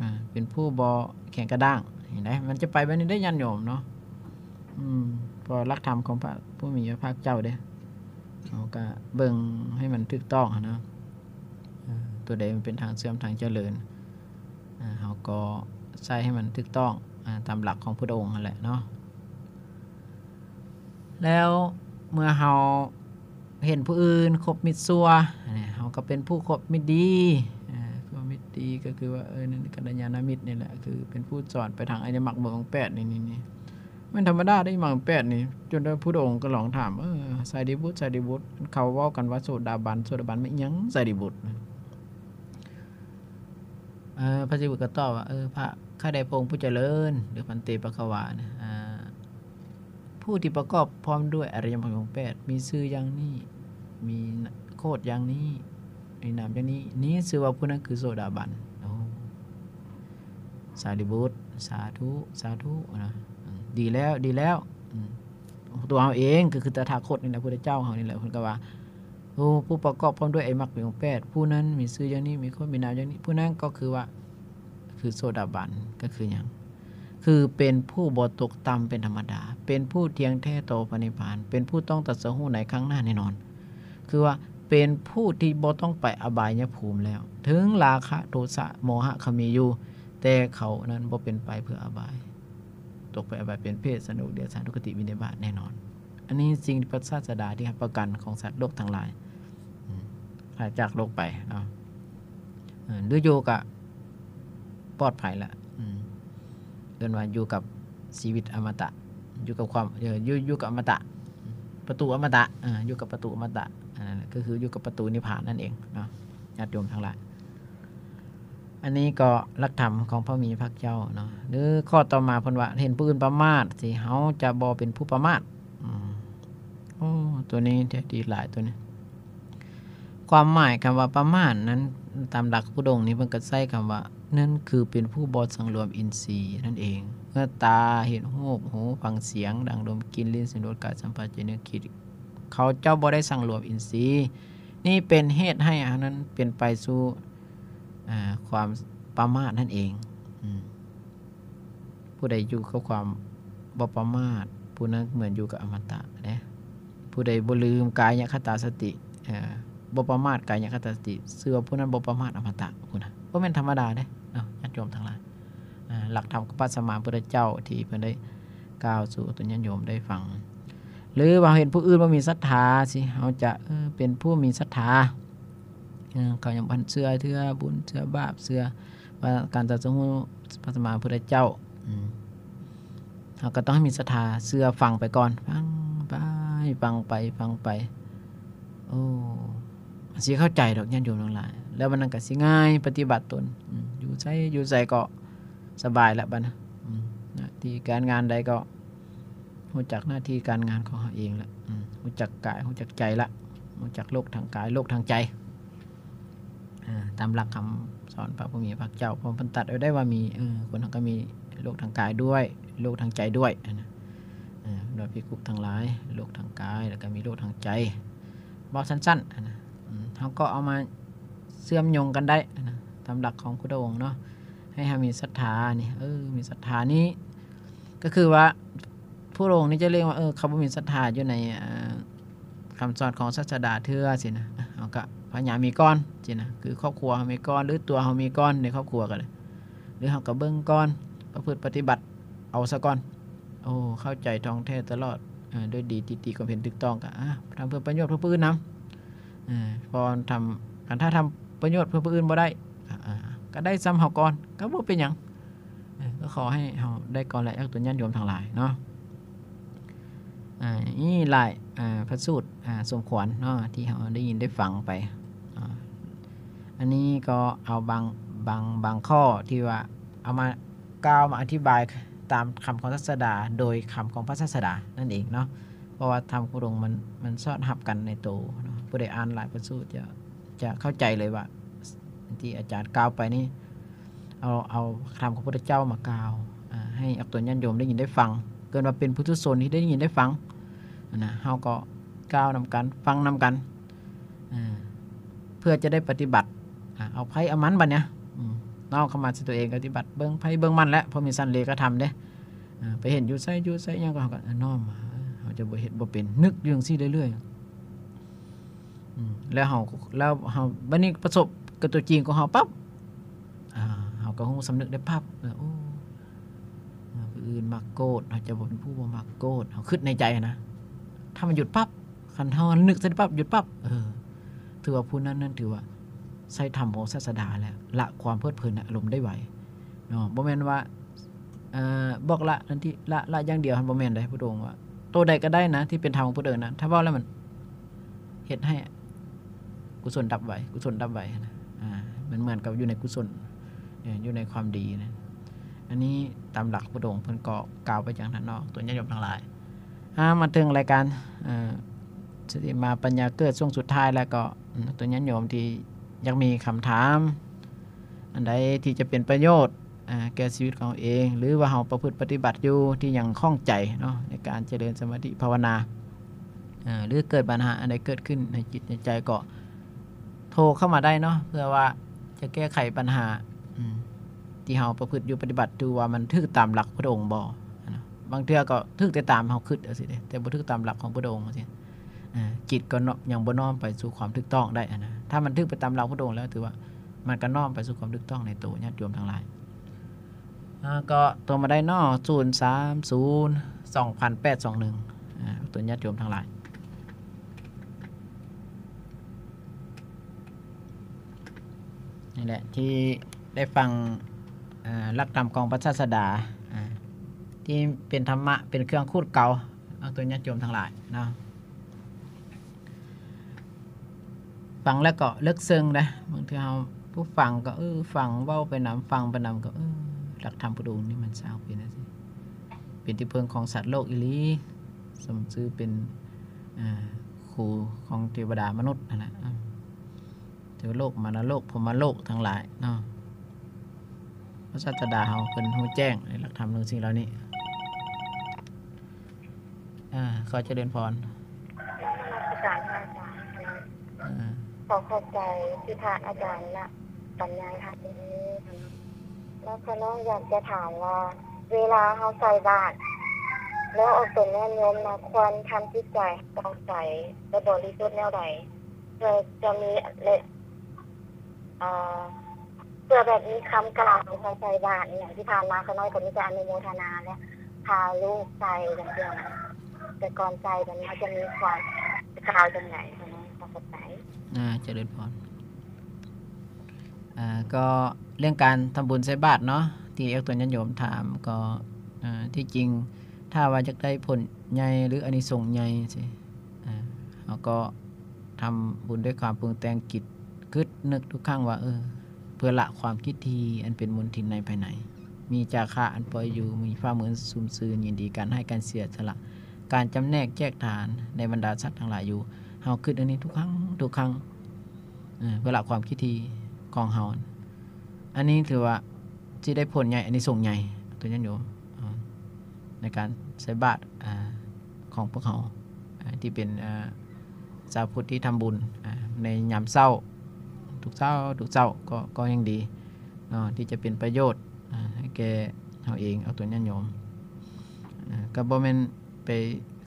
ອາ ເປັນຜູ້ບໍ່ແຂງກະດ້າງ ເຫັນໄດ໋ ມັນຈະໄປແບບນີ້ໄດ໋ ຍາດໂຍມເນາະ. ອືມ ເພາະຫຼັກທຳຂອງພະຜູ້ມີພະພາກເຈົ້າເດ້ ເຮົາກະເບິ່ງໃຫ້ມັນຖືກຕ້ອງຫັ້ນນະ ເອີ ຕົວໃດມັນເປັນທາງເຊື່ອມທາງຈະເລີນ ເຮົາກໍໃຊ້ໃຫ້ມັນຖືກຕ້ອງ ອາ ຕາມຫຼັກຂອງພຸດອົງຫັ້ນແຫຼະເນາະ. ແລ້ວເມື່ອເຮົາເຫັນຜູ້ອື່ນຄົບມິດຊົ່ວ ເຮົາກໍເປັນຜູ້ຄົບມິດດີ ອາ ຄົບມິດດີກໍຄືວ່າ ເອີ ນັ້ນກັນລະຍານະມິດນີ້ແຫຼະ ຄືເປັນຜູ້ສອນໄປທາງອະລິຍະມັກ ອະລິຍະມັກມີອົງແປດນີ້ ນີ້ ນີ້ ແມ່ນທຳມະດາເດ້ ມັກມີອົງແປດນີ້ ຈົນວ່າພຸດອົງກໍລອງຖາມ ເອີ ສາລີບຸດ ສາລີບຸດ ເຂົາເວົ້າກັນວ່າໂສດາບັນ ໂສດາບັນແມ່ນຫຍັງ ສາລີບຸດ? ເອີ ພະສາລີບຸດກໍຕອບວ່າ ເອີ ພະ ຂ້າແດ່ພະອົງຜູ້ຈະເລີນ ຫຼື ພັນເຕ ພະຄະວາ ນະ ອາ ຜູ້ທີ່ປະກອບພ້ອມດ້ວຍອະລິຍະມັກມີອົງແປດ ມີຊື່ຢ່າງນີ້ ມີໂຄດຢ່າງນີ້ ມີນາມຢ່າງນີ້ ນີ້ຊື່ວ່າຜູ້ນັ້ນຄືໂສດາບັນ. ໂອ້ ສາລີບຸດ ສາທຸ ສາທຸນະ ອືມ ດີແລ້ວ ດີແລ້ວ ອືມ ຕົວເຮົາເອງກໍຄືຕະຖາຄົດນີ້ແຫຼະ ພຸດທະເຈົ້າເຮົານີ້ແຫຼະ ເພິ່ນກໍວ່າ ໂອ້ ຜູ້ປະກອບພ້ອມດ້ວຍອະລິຍະມັກມີອົງແປດ ຜູ້ນັ້ນມີຊື່ຢ່າງນີ້ ມີໂຄດ ມີນາມຢ່າງນີ້ ຜູ້ນັ້ນກໍຄືວ່າ ຄືໂສດາບັນ ກໍຄືຫຍັງ? ຄືເປັນຜູ້ບໍ່ຕົກຕ່ຳເປັນທຳມະດາ ເປັນຜູ້ທ່ຽງແທ້ຕໍ່ພະນິບພານ ເປັນຜູ້ຕ້ອງຕັດສະຮູ້ໃນຄັ້ງໜ້າແນ່ນອນ ຄືວ່າເປັນຜູ້ທີ່ບໍ່ຕ້ອງໄປອະບາຍຍະພູມແລ້ວ ເຖິງລາຄະ ໂທສະ ໂມຫະ ເຂົາມີຢູ່ ແຕ່ເຂົານັ້ນບໍ່ເປັນໄປເພື່ອອະບາຍ ຕົກໄປອະບາຍເປັນເປດ ສະທຸກ ເດຍະຖານ ທຸກຄະຕິ ວິນິບາດແນ່ນອນ. ອັນນີ້ສິ່ງທີ່ພະສາສະດາທີ່ຮັບປະກັນຂອງສັດໂລກທັງຫຼາຍ ອືມ ພາຈາກໂລກໄປເນາະ ເອີ ຫຼືຢູ່ກະປອດໄພລະ ອືມ ເອີ້ນວ່າຢູ່ກັບຊີວິດອະມະຕະ ຢູ່ກັບຄວາມ ເອີ ຢູ່ ຢູ່ກັບອະມະຕະ ປະຕູອະມະຕະ ເອີ ຢູ່ກັບປະຕູອະມະຕະ ອັນນັ້ນແຫຼະ ກໍຄືຢູ່ກັບປະຕູນິບພານນັ້ນເອງເນາະ ຍາດໂຍມທັງຫຼາຍ. ອັນນີ້ກໍຫຼັກທຳຂອງພະມີພະພາກເຈົ້າເນາະ ຫຼືຂໍ້ຕໍ່ມາເພິ່ນວ່າ ເຫັນຜູ້ອື່ນປະໝາດ ຊິເຮົາຈະບໍ່ເປັນຜູ້ປະໝາດ ອືມ ໂອ້ ຕົວນີ້ແທ້ດີຫຼາຍຕົວນີ້ ຄວາມໝາຍຄຳວ່າປະໝາດນັ້ນ ຕາມຫຼັກພຸດອົງນີ້ເພິ່ນກໍໃຊ້ຄຳວ່າ ນັ້ນຄືເປັນຜູ້ບໍ່ສັງລວມອິນຊີນັ້ນເອງ ເມື່ອຕາເຫັນຮູບ ຫູຟັງສຽງ ດັງດົມ ກິ່ນ ລີ້ນ ຊິມ ລົດ ກາຍສຳຜັດ ໃຈນຶກຄິດ ເຂົາເຈົ້າບໍ່ໄດ້ສັງລວມອິນຊີ ນີ້ເປັນເຫດໃຫ້ອັນນັ້ນເປັນໄປສູ່ ອ່າ ຄວາມປະໝາດນັ້ນເອງ ອືມ ຜູ້ໃດຢູ່ກັບຄວາມບໍ່ປະໝາດ ຜູ້ນັ້ນເໝືອນຢູ່ກັບອະມະຕະເດ້ ຜູ້ໃດບໍ່ລືມກາຍະຄະຕາສະຕິ ເອີ ບໍ່ປະໝາດກາຍະຄະຕາສະຕິ ຊື່ວ່າຜູ້ນັ້ນບໍ່ປະໝາດອະມະຕະພຸ້ນນະ ບໍ່ແມ່ນທຳມະດາເດ້ເນາະ ຍາດໂຍມທັງຫຼາຍ. ອ່າ ຫຼັກທຳຂອງພະສຳມາພຸດທະເຈົ້າທີ່ເພິ່ນໄດ້ກ່າວສູ່ຕົນຍາດໂຍມໄດ້ຟັງ ຫຼືວ່າເຫັນຜູ້ອື່ນບໍ່ມີສັດທາ ຊິເຮົາຈະ ເອີ ເປັນຜູ້ມີສັດທາ ເອີ ເຂົາຍັງບໍ່ທັນເຊື່ອເທື່ອ ບຸນເຊື່ອບາບ ເຊື່ອວ່າການຕັດສະຮູ້ພະສຳມາພຸດທະເຈົ້າ ອືມ ເຮົາກໍຕ້ອງໃຫ້ມີສັດທາ ເຊື່ອ ຟັງໄປກ່ອນ ຟັງໄປ ຟັງໄປ ຟັງໄປ ໂອ້ ຊິເຂົ້າໃຈດອກຍາດໂຍມທັງຫຼາຍ ແລ້ວບັດນັ້ນກໍຊິງ່າຍປະຕິບັດຕົນ ອືມ ຢູ່ໃສ ຢູ່ໃສກໍສະບາຍລະບັດນະ ອືມ ໜ້າທີ່ການງານໃດກໍ ຮູ້ຈັກໜ້າທີ່ການງານຂອງເຮົາເອງລະ ອືມ ຮູ້ຈັກກາຍ ຮູ້ຈັກໃຈລະ ຮູ້ຈັກໂລກທາງກາຍ ໂລກທາງໃຈ ເອີ ຕາມຫຼັກຄຳສອນພະຜູ້ມີພະພາກເຈົ້າ ເພາະເພິ່ນຕັດໄວ້ໄດ້ວ່າມີ ເອີ ຄົນເຮົາກໍມີໂລກທາງກາຍດ້ວຍ ໂລກທາງໃຈດ້ວຍ ຫັ້ນນະ ເອີ ໂດຍພິກຂຸທັງຫຼາຍ ໂລກທາງກາຍ ແລ້ວກໍມີໂລກທາງໃຈ ເວົ້າສັ້ນໆ ຫັ້ນນະ ອືມ ເຮົາກໍເອົາມາເຊື່ອມໂຍງກັນໄດ້ ຫັ້ນນະ ຕາມຫຼັກຂອງພຸດທະອົງເນາະ ໃຫ້ເຮົາມີສັດທານີ້ ເອີ ມີສັດທານີ້ ກໍຄືວ່າ ພວກພະອົງນີ້ຈະເລັ່ງວ່າ ເອີ ເຂົາບໍ່ມີສັດທາຢູ່ໃນ ເອີ ຄຳສອນຂອງສາສະດາເທື່ອຊີ້ນະ ເຮົາກໍພະຍາຍາມມີກ່ອນຊີ້ນະ ຄືຄອບຄົວເຮົາມີກ່ອນ ຫຼືຕົວເຮົາມີກ່ອນໃນຄອບຄົວກໍໄດ້ ຫຼືເຮົາກໍເບິ່ງກ່ອນ ປະພຶດປະຕິບັດເອົາຊະກ່ອນ ໂອ້ ເຂົ້າໃຈທ່ອງແທ້ຕະຫຼອດ ເອີ ດ້ວຍດີ ຕີຕີຄວາມເຫັນຖືກຕ້ອງ ກໍ ອາ ທຳເພື່ອປະໂຫຍດເພື່ອຜູ້ອື່ນນຳ ເອີ ເພາະທຳ ຄັນຖ້າທຳປະໂຫຍດເພື່ອຜູ້ອື່ນບໍ່ໄດ້ ກໍ ອາ ກໍໄດ້ຊ່ຳເຮົາກ່ອນ ກໍບໍ່ເປັນຫຍັງ ເອີ ກໍຂໍໃຫ້ເຮົາໄດ້ກ່ອນແຫຼະ ຍາດໂຍມທັງຫຼາຍເນາະ. ອ່າ ມີຫຼາຍ ອ່າ ພະສູດ ອ່າ ສົມຄວນເນາະ ທີ່ເຮົາໄດ້ຍິນໄດ້ຟັງໄປ. ອ່າ ອັນນີ້ກໍເອົາບາງ ບາງ ບາງຂໍ້ທີ່ວ່າເອົາມາກ່າວມາອະທິບາຍຕາມຄຳຂອງສາດສະດາ ໂດຍຄຳຂອງພະສາດສະດານັ້ນເອງເນາະ. ເພາະວ່າທຳຂອງພະອົງມັນ ມັນສອດຮັບກັນໃນໂຕເນາະ. ຜູ້ໃດອ່ານຫຼາຍພະສູດຈະ ຈະເຂົ້າໃຈເລີຍວ່າ ທີ່ອາຈານກ່າວໄປນີ້ ເອົາ ເອົາທຳຂອງພະພຸດທະເຈົ້າມາກ່າວ ອ່າ ໃຫ້ອອກຕົນຍາດໂຍມໄດ້ຍິນໄດ້ຟັງ ເກີດວ່າເປັນປຸຖຸຊົນທີ່ໄດ້ຍິນໄດ້ຟັງນະ ເຮົາກໍກ່າວນຳກັນ ຟັງນຳກັນ ເພື່ອຈະໄດ້ປະຕິບັດ ເອົາໃຜເອົາມັນບັດເນີ້ຍ ນ້ອມເຂົ້າມາໃສ່ຕົວເອງ ປະຕິບັດເບິ່ງໃຜເບິ່ງມັນແຫຼະ ເພາະມີຊັ້ນເລກະທຳເດ້. ໄປເຫັນຢູ່ໃສຢູ່ໃສຫຍັງກໍ ເຮົາກໍນ້ອມມາ ເຮົາຈະບໍ່ເຮັດບໍ່ເປັນ ນຶກຢູ່ຈັ່ງຊີ້ເລື້ອຍໆ ອືມ ແລ້ວເຮົາ ແລ້ວເຮົາ ບັດນີ້ປະສົບກັບຕົວຈິງຂອງເຮົາປັບ ອ່າ ເຮົາກໍຮູ້ສຳນຶກໄດ້ປັບ ເອີ ໂອ້ ເອີ ຜູ້ອື່ນມັກໂກດ ເຮົາຈະບໍ່ເປັນຜູ້ບໍ່ມັກໂກດ ເຮົາຄິດໃນໃຈນະ. ຖ້າມັນຢຸດປັບ ຄັນເຮົານຶກໃສ່ປັບ ຢຸດປັບ ເອີ ຖືວ່າຜູ້ນັ້ນນັ້ນຖືວ່າໃຊ້ທຳຂອງສາດສະດາແລ້ວ ລະຄວາມເພີດເພີນໃນອາລົມໄດ້ໄວເນາະ. ບໍ່ແມ່ນວ່າ ເອີ ບອກລະ ອັນທີ່ລະ ລະຢ່າງດຽວຫັ້ນ ບໍ່ແມ່ນເດ້. ພະພຸດທະອົງວ່າ ໂຕໃດກໍໄດ້ນະ ທີ່ເປັນທຳຂອງພະພຸດທະອົງນະ ຖ້າເວົ້າແລ້ວມັນເຮັດໃຫ້ກຸສົນດັບໄວ ກຸສົນດັບໄວນະ. ອ່າ ມັນເໝືອນກັບຢູ່ໃນກຸສົນ ເອີ ຢູ່ໃນຄວາມດີນະ. ອັນນີ້ຕາມຫຼັກພະພຸດທະອົງເພິ່ນກໍກ່າວໄປຢ່າງນັ້ນເນາະ ຕົວຍາດໂຍມທັງຫຼາຍ. ອ່າ ມາເຖິງລາຍການ ເອີ ສະຕິມາປັນຍາເກີດຊ່ວງສຸດທ້າຍແລ້ວກໍ ອືມ ຕົວຍາດໂຍມທີ່ຢາກມີຄຳຖາມ ອັນໃດທີ່ຈະເປັນປະໂຫຍດ ອ່າ ແກ່ຊີວິດຂອງເຮົາເອງ ຫຼືວ່າເຮົາປະພຶດປະຕິບັດຢູ່ ທີ່ຍັງຂ້ອງໃຈເນາະ ໃນການຈະເລີນສະມາທິພາວະນາ ເອີ ຫຼືເກີດບັນຫາອັນໃດເກີດຂຶ້ນໃນຈິດໃນໃຈ ກໍໂທເຂົ້າມາໄດ້ເນາະ ເພື່ອວ່າຈະແກ້ໄຂບັນຫາ ອືມ ທີ່ເຮົາປະພຶດຢູ່ປະຕິບັດຢູ່ ວ່າມັນຖືກຕາມຫຼັກພະພຸດທະອົງບໍ່. ບາງເທື່ອກໍຖືກແຕ່ຕາມເຮົາຄິດຈັ່ງຊີ້ເດ້ ແຕ່ບໍ່ຖືກຕາມຫຼັກຂອງພະພຸດທະອົງຈັ່ງຊີ້ ເອີ ຈິດກໍຍັງບໍ່ນ້ອມໄປສູ່ຄວາມຖືກຕ້ອງໄດ້ຫັ້ນນະ. ຖ້າມັນຖືກໄປຕາມຫຼັກພະພຸດທະອົງແລ້ວ ຖືວ່າມັນກໍນ້ອມໄປສູ່ຄວາມຖືກຕ້ອງໃນໂຕຍາດໂຍມທັງຫຼາຍ. ອ່າ ກໍໂທມາໄດ້ເນາະ ສູນສາມສູນ ສອງພັນແປດສອງໜຶ່ງ ອ່າ ຕົວຍາດໂຍມທັງຫຼາຍ ນີ້ແຫຼະ ທີ່ໄດ້ຟັງ ເອີ ຫຼັກທຳຂອງພະສາດສະດາ ອ່າ ທີ່ເປັນທຳມະ ເປັນເຄື່ອງຂູດເກົາ ອອກຕົນຍາດໂຍມທັງຫຼາຍເນາະ. ຟັງແລ້ວກໍເລິກເຊິ່ງເດ້. ບາງເທື່ອເຮົາຜູ້ຟັງກໍ ເອີ ຟັງເວົ້າໄປນຳ ຟັງໄປນຳກໍ ເອີ ຫຼັກທຳພຸດທະອົງນີ້ມັນຊ່າງເປັນຈັ່ງຊີ້ ເປັນທີ່ເພິ່ງຂອງສັດໂລກອີ່ຫຼີ ສົມຊື່ເປັນ ເອີ ຄູຂອງເທວະດາມະນຸດຫັ້ນແຫຼະ ເອີ ເທວະໂລກ ມານະໂລກ ພົມມະໂລກທັງຫຼາຍເນາະ. ພະສາດສະດາເຮົາເພິ່ນຮູ້ແຈ້ງໃນຫຼັກທຳເລື່ອງສິ່ງເຫຼົ່ານີ້. ອ່າ ຂໍຈະເລີນພອນ ນະມັດສະການພະອາຈານ. ອ່າ ຂໍຂອບໃຈທີ່ພະອາຈານນະບັນຍາຍທຳມື້ນີ້. ແລ້ວຂ້ານ້ອຍຢາກຈະຖາມວ່າ ເວລາເຮົາໃສ່ບາດ ແລ້ວອອກຕົນຍາດໂຍມນະ ຄວນທຳຈິດໃຈໃຫ້ຜ່ອງໃສ ແລະ ບໍລິສຸດແນວໃດ ເພື່ອຈະມີ ແລະ ເອີ ເພື່ອແບບມີຄຳກ່າວໃສ່ບາດອີ່ຫຍັງທີ່ຜ່ານມາ ຂ້ານ້ອຍກໍມີແຕ່ອະນຸໂມທະນາ ແລະ ພາລູກໃສ່ຈັ່ງຊີ້ນະ. ແຕ່ກ່ອນໃສ່ແບບນີ້ ເຮົາຈະມີຄວາມກ່າວຈັ່ງໃດ? ຂໍຂອບໃຈ. ອ່າ ຈະເລີນພອນ. ອ່າ ກໍເລື່ອງການທຳບຸນໃສ່ບາດເນາະ ທີ່ອອກຕົນຍາດໂຍມຖາມ ກໍ ອ່າ ທີ່ຈິງ ຖ້າວ່າຢາກໄດ້ຜົນໃຫຍ່ ຫຼື ອານິສົງໃຫຍ່ຊີ້ ອ່າ ເຮົາກໍທຳບຸນດ້ວຍຄວາມປຸງແຕ່ງຈິດ ຄິດນຶກທຸກຄັ້ງວ່າ ເອີ ເພື່ອລະຄວາມກິດຖີ່ອັນເປັນມົນທິນໃນພາຍໃນ, ມີຈາຄະອັນປ່ອຍຢູ່, ມີຟ້າມືອັນຊຸ່ມຊື່ນ, ຍິນດີການໃຫ້ການເສຍສະຫຼະ, ການຈຳແນກແຈກທານໃນບັນດາສັດທັງຫຼາຍຢູ່. ເຮົາຄິດອັນນີ້ທຸກຄັ້ງ ທຸກຄັ້ງ ເອີ ເພື່ອລະຄວາມກິດຖີ່ຂອງເຮົາ. ອັນນີ້ຖືວ່າຊິໄດ້ຜົນໃຫຍ່ ອານິສົງໃຫຍ່ ຕົວຍາດໂຍມ ໃນການໃສ່ບາດ ອ່າ ຂອງພວກເຮົາ ອ່າ ທີ່ເປັນ ອ່າ ຊາວພຸດທີ່ທຳບຸນ ອ່າ ໃນຍາມເຊົ້າ ທຸກເຊົ້າ ທຸກເຊົ້າ ກໍ ກໍຍັງດີເນາະ ທີ່ຈະເປັນປະໂຫຍດ ອ່າ ໃຫ້ແກ່ເຮົາເອງ ອອກຕົນຍາດໂຍມ. ອ່າ ກໍບໍ່ແມ່ນໄປ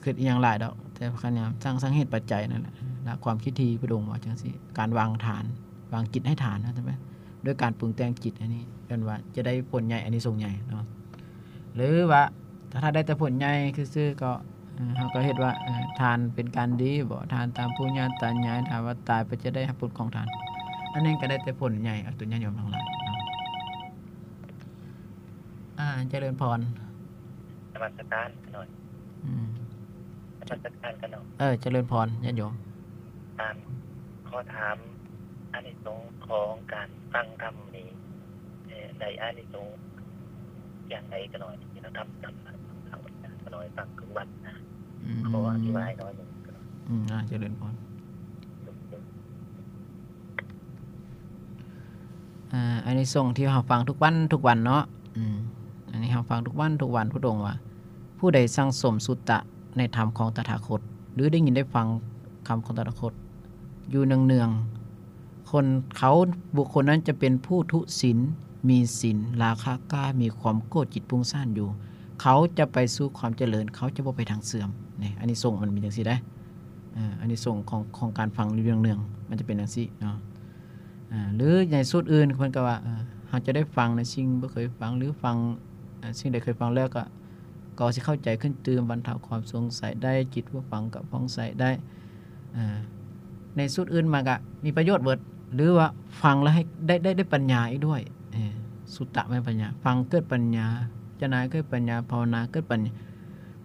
ຄິດອີ່ຫຍັງຫຼາຍດອກ ແຕ່ພະຍາຍາມສ້າງ ສ້າງເຫດປັດໄຈນັ້ນແຫຼະ ລະຄວາມຄິດທີ່ພະອົງວ່າຈັ່ງຊີ້ ການວາງທານ ວາງຈິດໃຫ້ທານ ວ່າຊັ້ນໄປ ດ້ວຍການປຸງແຕ່ງຈິດ ອັນນີ້ເອີ້ນວ່າຈະໄດ້ຜົນໃຫຍ່ ອານິສົງໃຫຍ່ເນາະ. ຫຼືວ່າຖ້າໄດ້ແຕ່ຜົນໃຫຍ່ຊື່ໆ ກໍ ເອີ ເຮົາກໍເຮັດວ່າ ເອີ ທານເປັນການດີບໍ ທານຕາມປູ່ຍ່າຕາຍາຍ ຖ້າວ່າຕາຍໄປຈະໄດ້ຮັບຜົນຂອງທານ ອັນນັ້ນກໍໄດ້ແຕ່ຜົນໃຫຍ່ ອອກຕົນຍາດໂຍມທັງຫຼາຍເນາະ. ອ່າ ຈະເລີນພອນ ນະມັດສະການຂ້ານ້ອຍ. ອືມ ເອີ ນະມັດສະການຂະນ້ອຍ. ເອີ ຈະເລີນພອນຍາດໂຍມ. ອາ ຂໍຖາມອານິສົງຂອງການຟັງທຳນີ້ ເອີ ໄດ້ອານິສົງຢ່າງໃດຂະນ້ອຍ? ທຳ ທຳ ທຳຂະນ້ອຍຟັງທຸກວັນນະ. ອືມ ຂໍອະທິບາຍໜ້ອຍໜຶ່ງ. ອືມ ອາ ຈະເລີນພອນ. ອາ ອານິສົງທີ່ເຮົາຟັງທຸກວັນ ທຸກວັນເນາະ. ອືມ ອັນນີ້ເຮົາຟັງທຸກວັນ ທຸກວັນ ພະອົງວ່າ ຜູ້ໃດສັ່ງສົມສຸຕະໃນທຳຂອງຕະຖາຄົດ ຫຼື ໄດ້ຍິນໄດ້ຟັງຄຳຂອງຕະຖາຄົດຢູ່ເນືອງໆ ຄົນເຂົາ ບຸກຄົນນັ້ນຈະເປັນຜູ້ທຸສິນ ມີສິນ ລາຄາກ້າ ມີຄວາມໂກດ ຈິດຟຸ້ງສ້ານຢູ່ ເຂົາຈະໄປສູ່ຄວາມຈະເລີນ ເຂົາຈະບໍ່ໄປທາງເສື່ອມ. ນີ້ ອານິສົງມັນມີຈັ່ງຊີ້ເດ້. ອາ ອານິສົງຂອງ ຂອງການຟັງຢູ່ເນືອງໆ ມັນຈະເປັນຈັ່ງຊີ້ເນາະ. ອາ ຫຼື ໃນສູດອື່ນເພິ່ນກໍວ່າ ເອີ ເຮົາຈະໄດ້ຟັງໃນສິ່ງບໍ່ເຄີຍຟັງ ຫຼື ຟັງ ອາ ສິ່ງໃດເຄີຍຟັງແລ້ວກໍ ກໍຊິເຂົ້າໃຈຂຶ້ນຕື່ມ ບັນເທົາຄວາມສົງໄສໄດ້ ຈິດຜູ້ຟັງກໍຜ່ອງໃສໄດ້. ອາ ໃນສູດອື່ນມາກໍມີປະໂຫຍດເບິດ ຫຼືວ່າຟັງແລ້ວໃຫ້ໄດ້ ໄດ້ ໄດ້ປັນຍາອີກດ້ວຍ. ເອີ ສຸຕະແມ່ນປັນຍາ ຟັງເກີດປັນຍາ ພິຈາລະນາເກີດປັນຍາ ພາວະນາເກີດປັນຍາ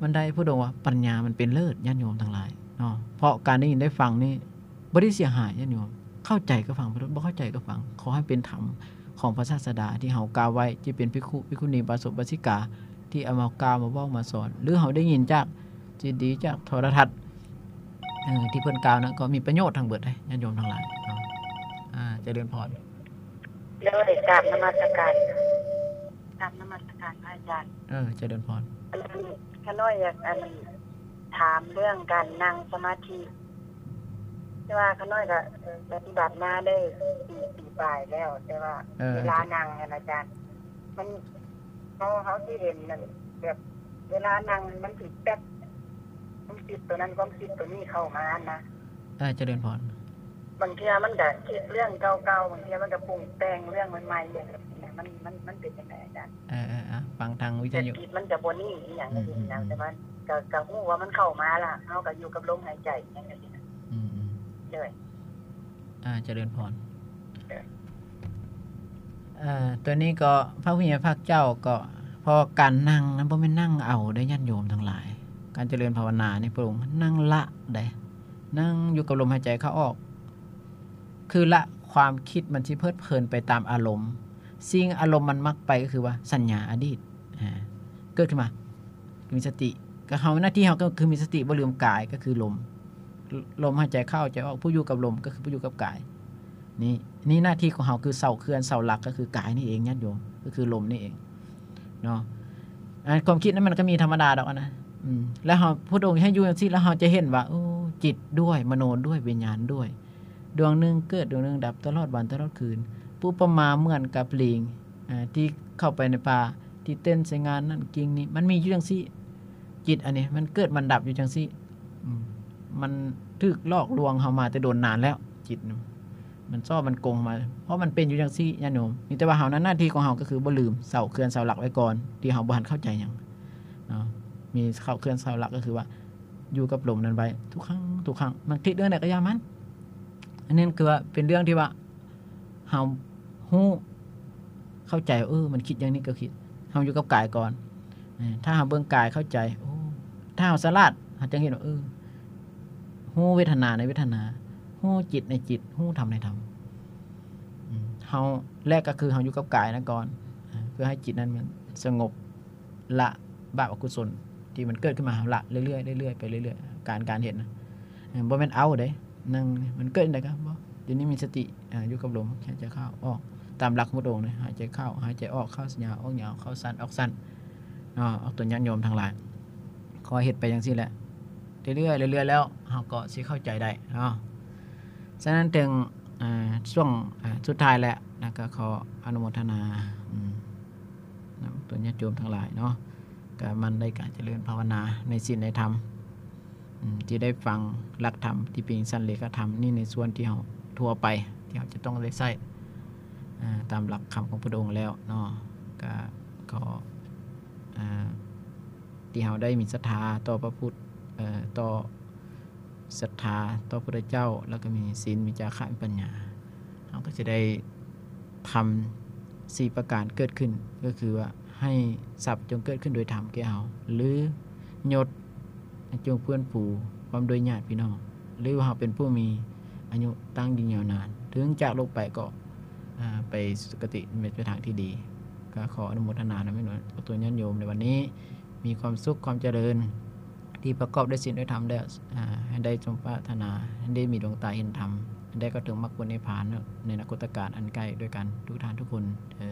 ມັນໄດ້ ພະອົງວ່າປັນຍາມັນເປັນເລີດ ຍາດໂຍມທັງຫຼາຍເນາະ. ເພາະການໄດ້ຍິນໄດ້ຟັງນີ້ ບໍ່ໄດ້ເສຍຫາຍຍາດໂຍມ ເຂົ້າໃຈກໍຟັງໄປໂລດ ບໍ່ເຂົ້າໃຈກໍຟັງ. ຂໍໃຫ້ເປັນທຳຂອງພະສາສະດາທີ່ເຮົາກ່າວໄວ້ ທີ່ເປັນພິກຂຸ ພິກຂຸນີ ອຸບາສົກ ອຸບາສິກາ ທີ່ເອົາມາກ່າວມາເວົ້າມາສອນ ຫຼື ເຮົາໄດ້ຍິນຈາກຊີດີ ຈາກໂທລະທັດ ເອີ ທີ່ເພິ່ນກ່າວນັ້ນ ກໍມີປະໂຫຍດທັງເບິດເດ້ຍາດໂຍມທັງຫຼາຍເນາະ. ອາ ຈະເລີນພອນ. ໂດຍ ກາບນະມັດສະການ ກາບນະມັດສະການພະອາຈານ. ເອີ ຈະເລີນພອນ. ຂ້ານ້ອຍຢາກ ອັນ ຖາມເລື່ອງການນັ່ງສະມາທິ ແຕ່ວ່າຂ້ານ້ອຍກໍ ເອີ ປະຕິບັດມາໄດ້ປີ ປີປາຍແລ້ວ ແຕ່ວ່າ ເອີ ເວລານັ່ງຫັ້ນອາຈານ ມັນ ເຮົາ ເຮົາຊິເຫັນນັ້ນ ແບບເວລານັ່ງມັນຊິແປັບ ຄວາມຄິດໂຕນັ້ນ ຄວາມຄິດໂຕນີ້ເຂົ້າມານະ. ເອີ ຈະເລີນພອນ. ບາງເທື່ອມັນກໍຄິດເລື່ອງເກົ່າໆ ບາງເທື່ອມັນກໍປຸງແຕ່ງເລື່ອງໃໝ່ໆ ຈັ່ງຊີ້ນະ ມັນ ມັນ ມັນເປັນຈັ່ງໃດອາຈານ? ເອີໆ ຟັງທາງວິທະຍຸ ແຕ່ຈິດມັນຈະບໍ່ນິ່ງອີ່ຫຍັງຈັ່ງຊີ້ນະ ອືມໆໆ ແຕ່ວ່າກໍ ກໍຮູ້ວ່າມັນເຂົ້າມາລະ ເຮົາກໍຢູ່ກັບລົມຫາຍໃຈຫຍັງຈັ່ງຊີ້ນະ. ອືມໆ ໂດຍ ອາ ຈະເລີນພອນ. ໂດຍ ເອີ ຕົວນີ້ກໍພະຜູ້ໃຫຍ່ພາກເຈົ້າກໍ ເພາະການນັ່ງນັ້ນບໍ່ແມ່ນນັ່ງເອົາເດ້ຍາດໂຍມທັງຫຼາຍ. ການຈະເລີນພາວະນານີ້ ພະອົງນັ່ງລະເດ້ ນັ່ງຢູ່ກັບລົມຫາຍໃຈເຂົ້າອອກ ຄືລະຄວາມຄິດມັນຊິເພີດເພີນໄປຕາມອາລົມ. ສິ່ງອາລົມມັນມັກໄປກໍຄືວ່າສັນຍາອະດີດ ອາ ເກີດຂຶ້ນມາ ມີສະຕິ ກໍເຮົາ ໜ້າທີ່ເຮົາກໍຄືມີສະຕິ ບໍ່ລືມກາຍ ກໍຄືລົມ ລົມຫາຍໃຈເຂົ້າໃຈອອກ ຜູ້ຢູ່ກັບລົມກໍຄືຜູ້ຢູ່ກັບກາຍ. ນີ້ ນີ້ໜ້າທີ່ຂອງເຮົາ ຄືເສົາເຄື່ອນເສົາຫຼັກກໍຄືກາຍນີ້ເອງຍາດໂຍມ ກໍຄືລົມນີ້ເອງເນາະ. ອາ ຄວາມຄິດນັ້ນມັນກໍມີທຳມະດາດອກນະ ອືມ ແລ້ວເຮົາ ພະພຸດທະອົງໃຫ້ຢູ່ຈັ່ງຊີ້ ແລ້ວເຮົາຈະເຫັນວ່າ ໂອ້ ຈິດດ້ວຍ ມະໂນດ້ວຍ ວິນຍານດ້ວຍ ດວງໜຶ່ງເກີດ ດວງໜຶ່ງດັບ ຕະຫຼອດວັນຕະຫຼອດຄືນ. ອຸປະມາເໝືອນກັບລີງ ອາ ທີ່ເຂົ້າໄປໃນປ່າ ທີ່ເຕັ້ນໃສ່ງ່ານນັ້ນກິ່ງນີ້ ມັນມີຢູ່ຈັ່ງຊີ້. ຈິດອັນນີ້ມັນເກີດມັນດັບຢູ່ຈັ່ງຊີ້ ອືມ ມັນຖືກຫຼອກລວງເຮົາມາແຕ່ດົນນານແລ້ວ. ຈິດນະ ມັນຊອບມັນກົງມາ ເພາະມັນເປັນຢູ່ຈັ່ງຊີ້ຍາດໂຍມ. ມີແຕ່ວ່າເຮົານັ້ນ ໜ້າທີ່ຂອງເຮົາກໍຄືບໍ່ລືມເສົາເຄື່ອນເສົາຫຼັກໄວ້ກ່ອນ ທີ່ເຮົາບໍ່ທັນເຂົ້າໃຈຫຍັງເນາະ. ມີເສົາເຄື່ອນເສົາຫຼັກກໍຄືວ່າຢູ່ກັບລົມນັ້ນໄວ້ທຸກຄັ້ງ ທຸກຄັ້ງ. ມັນຄິດເລື່ອງໃດກໍຢ່າມັນ ອັນນັ້ນຄືວ່າເປັນເລື່ອງທີ່ວ່າ ເຮົາຮູ້ເຂົ້າໃຈວ່າ ເອີ ມັນຄິດຢ່າງນີ້ກໍຄິດ. ເຮົາຢູ່ກັບກາຍກ່ອນ ເອີ ຖ້າເຮົາເບິ່ງກາຍເຂົ້າໃຈ ໂອ້ ຖ້າເຮົາສະຫຼາດ ເຮົາຈະເຫັນວ່າ ເອີ ຮູ້ເວທະນາໃນເວທະນາ ຮູ້ຈິດໃນຈິດ ຮູ້ທຳໃນທຳ. ອືມ ເຮົາ ແລກກໍຄືເຮົາຢູ່ກັບກາຍນັ້ນກ່ອນ ເພື່ອໃຫ້ຈິດນັ້ນມັນສະຫງົບ ລະບາບອະກຸສົນທີ່ມັນເກີດຂຶ້ນມາ ເຮົາລະເລື້ອຍໆ ເລື້ອຍໆ ໄປເລື້ອຍໆ ການ ການເຮັດນະ ເອີ ບໍ່ແມ່ນເອົາເດ້ ນັ່ງ ມັນເກີດຈັ່ງໃດກໍບໍ່ ດຽວນີ້ມີສະຕິ ອາ ຢູ່ກັບລົມ ຫາຍໃຈເຂົ້າອອກ ຕາມຫຼັກຂອງພຸດອົງນະ ຫາຍໃຈເຂົ້າ ຫາຍໃຈອອກ ເຂົ້າຍາວ ອອກຍາວ ເຂົ້າສັ້ນ ອອກສັ້ນເນາະ. ອອກຕົນຍາດໂຍມທັງຫຼາຍ ຂໍເຮັດໄປຈັ່ງຊີ້ແຫຼະ ເລື້ອຍໆ ເລື້ອຍໆ ແລ້ວເຮົາກໍຊິເຂົ້າໃຈໄດ້ເນາະ. ສະນັ້ນເຖິງ ອາ ຊ່ວງ ອາ ສຸດທ້າຍແລ້ວນະ ກໍຂໍອະນຸໂມທະນາ ອືມ ນຳຕົນຍາດໂຍມທັງຫຼາຍເນາະ ກໍໝັ່ນໃນການຈະເລີນພາວະນາໃນສິນໃນທຳ ອືມ ທີ່ໄດ້ຟັງຫຼັກທຳທີ່ເປັນສັນເລຂະທຳນີ້ ໃນສ່ວນທີ່ເຮົາທົ່ວໄປ ທີ່ເຮົາຈະຕ້ອງໄດ້ໃຊ້ ອາ ຕາມຫຼັກຄຳຂອງພຸດອົງແລ້ວເນາະ. ກໍຂໍ ອາ ທີ່ເຮົາໄດ້ມີສັດທາຕໍ່ພະພຸດ ເອີ ຕໍ່ ສັດທາຕໍ່ພະພຸດທະເຈົ້າ ແລ້ວກໍມີສິນ ມີຈາຄະ ມີປັນຍາ ເຮົາກໍຈະໄດ້ທຳສີ່ປະການເກີດຂຶ້ນ ກໍຄືວ່າ ໃຫ້ຊັບຈົ່ງເກີດຂຶ້ນໂດຍທຳແກ່ເຮົາ ຫຼື ຍົດ ຈົ່ງເພື່ອນຟູພ້ອມດ້ວຍຍາດພີ່ນ້ອງ ຫຼືວ່າເຮົາເປັນຜູ້ມີອາຍຸຕັ້ງຢືນຍາວນານ ເຖິງຈາກໂລກໄປກໍ ອາ ໄປສຸຄະຕິ ເປັນທາງທີ່ດີ. ກໍຂໍອະນຸໂມທະນານຳແມ່ນວ່າ ອອກຕົນຍາດໂຍມໃນວັນນີ້ ມີຄວາມສຸກຄວາມຈະເລີນ ທີ່ປະກອບດ້ວຍສິນດ້ວຍທຳແລ້ວ ອາ ໃຫ້ໄດ້ສົມປາດຖະໜາ ໃຫ້ໄດ້ມີດວງຕາເຫັນທຳ ໃຫ້ໄດ້ເຂົ້າເຖິງມັກຜົນນິບພານໃນອະນາຄົດຕະການອັນໃກ້ດ້ວຍກັນທຸກທ່ານທຸກຄົນເທີ້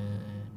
ນ.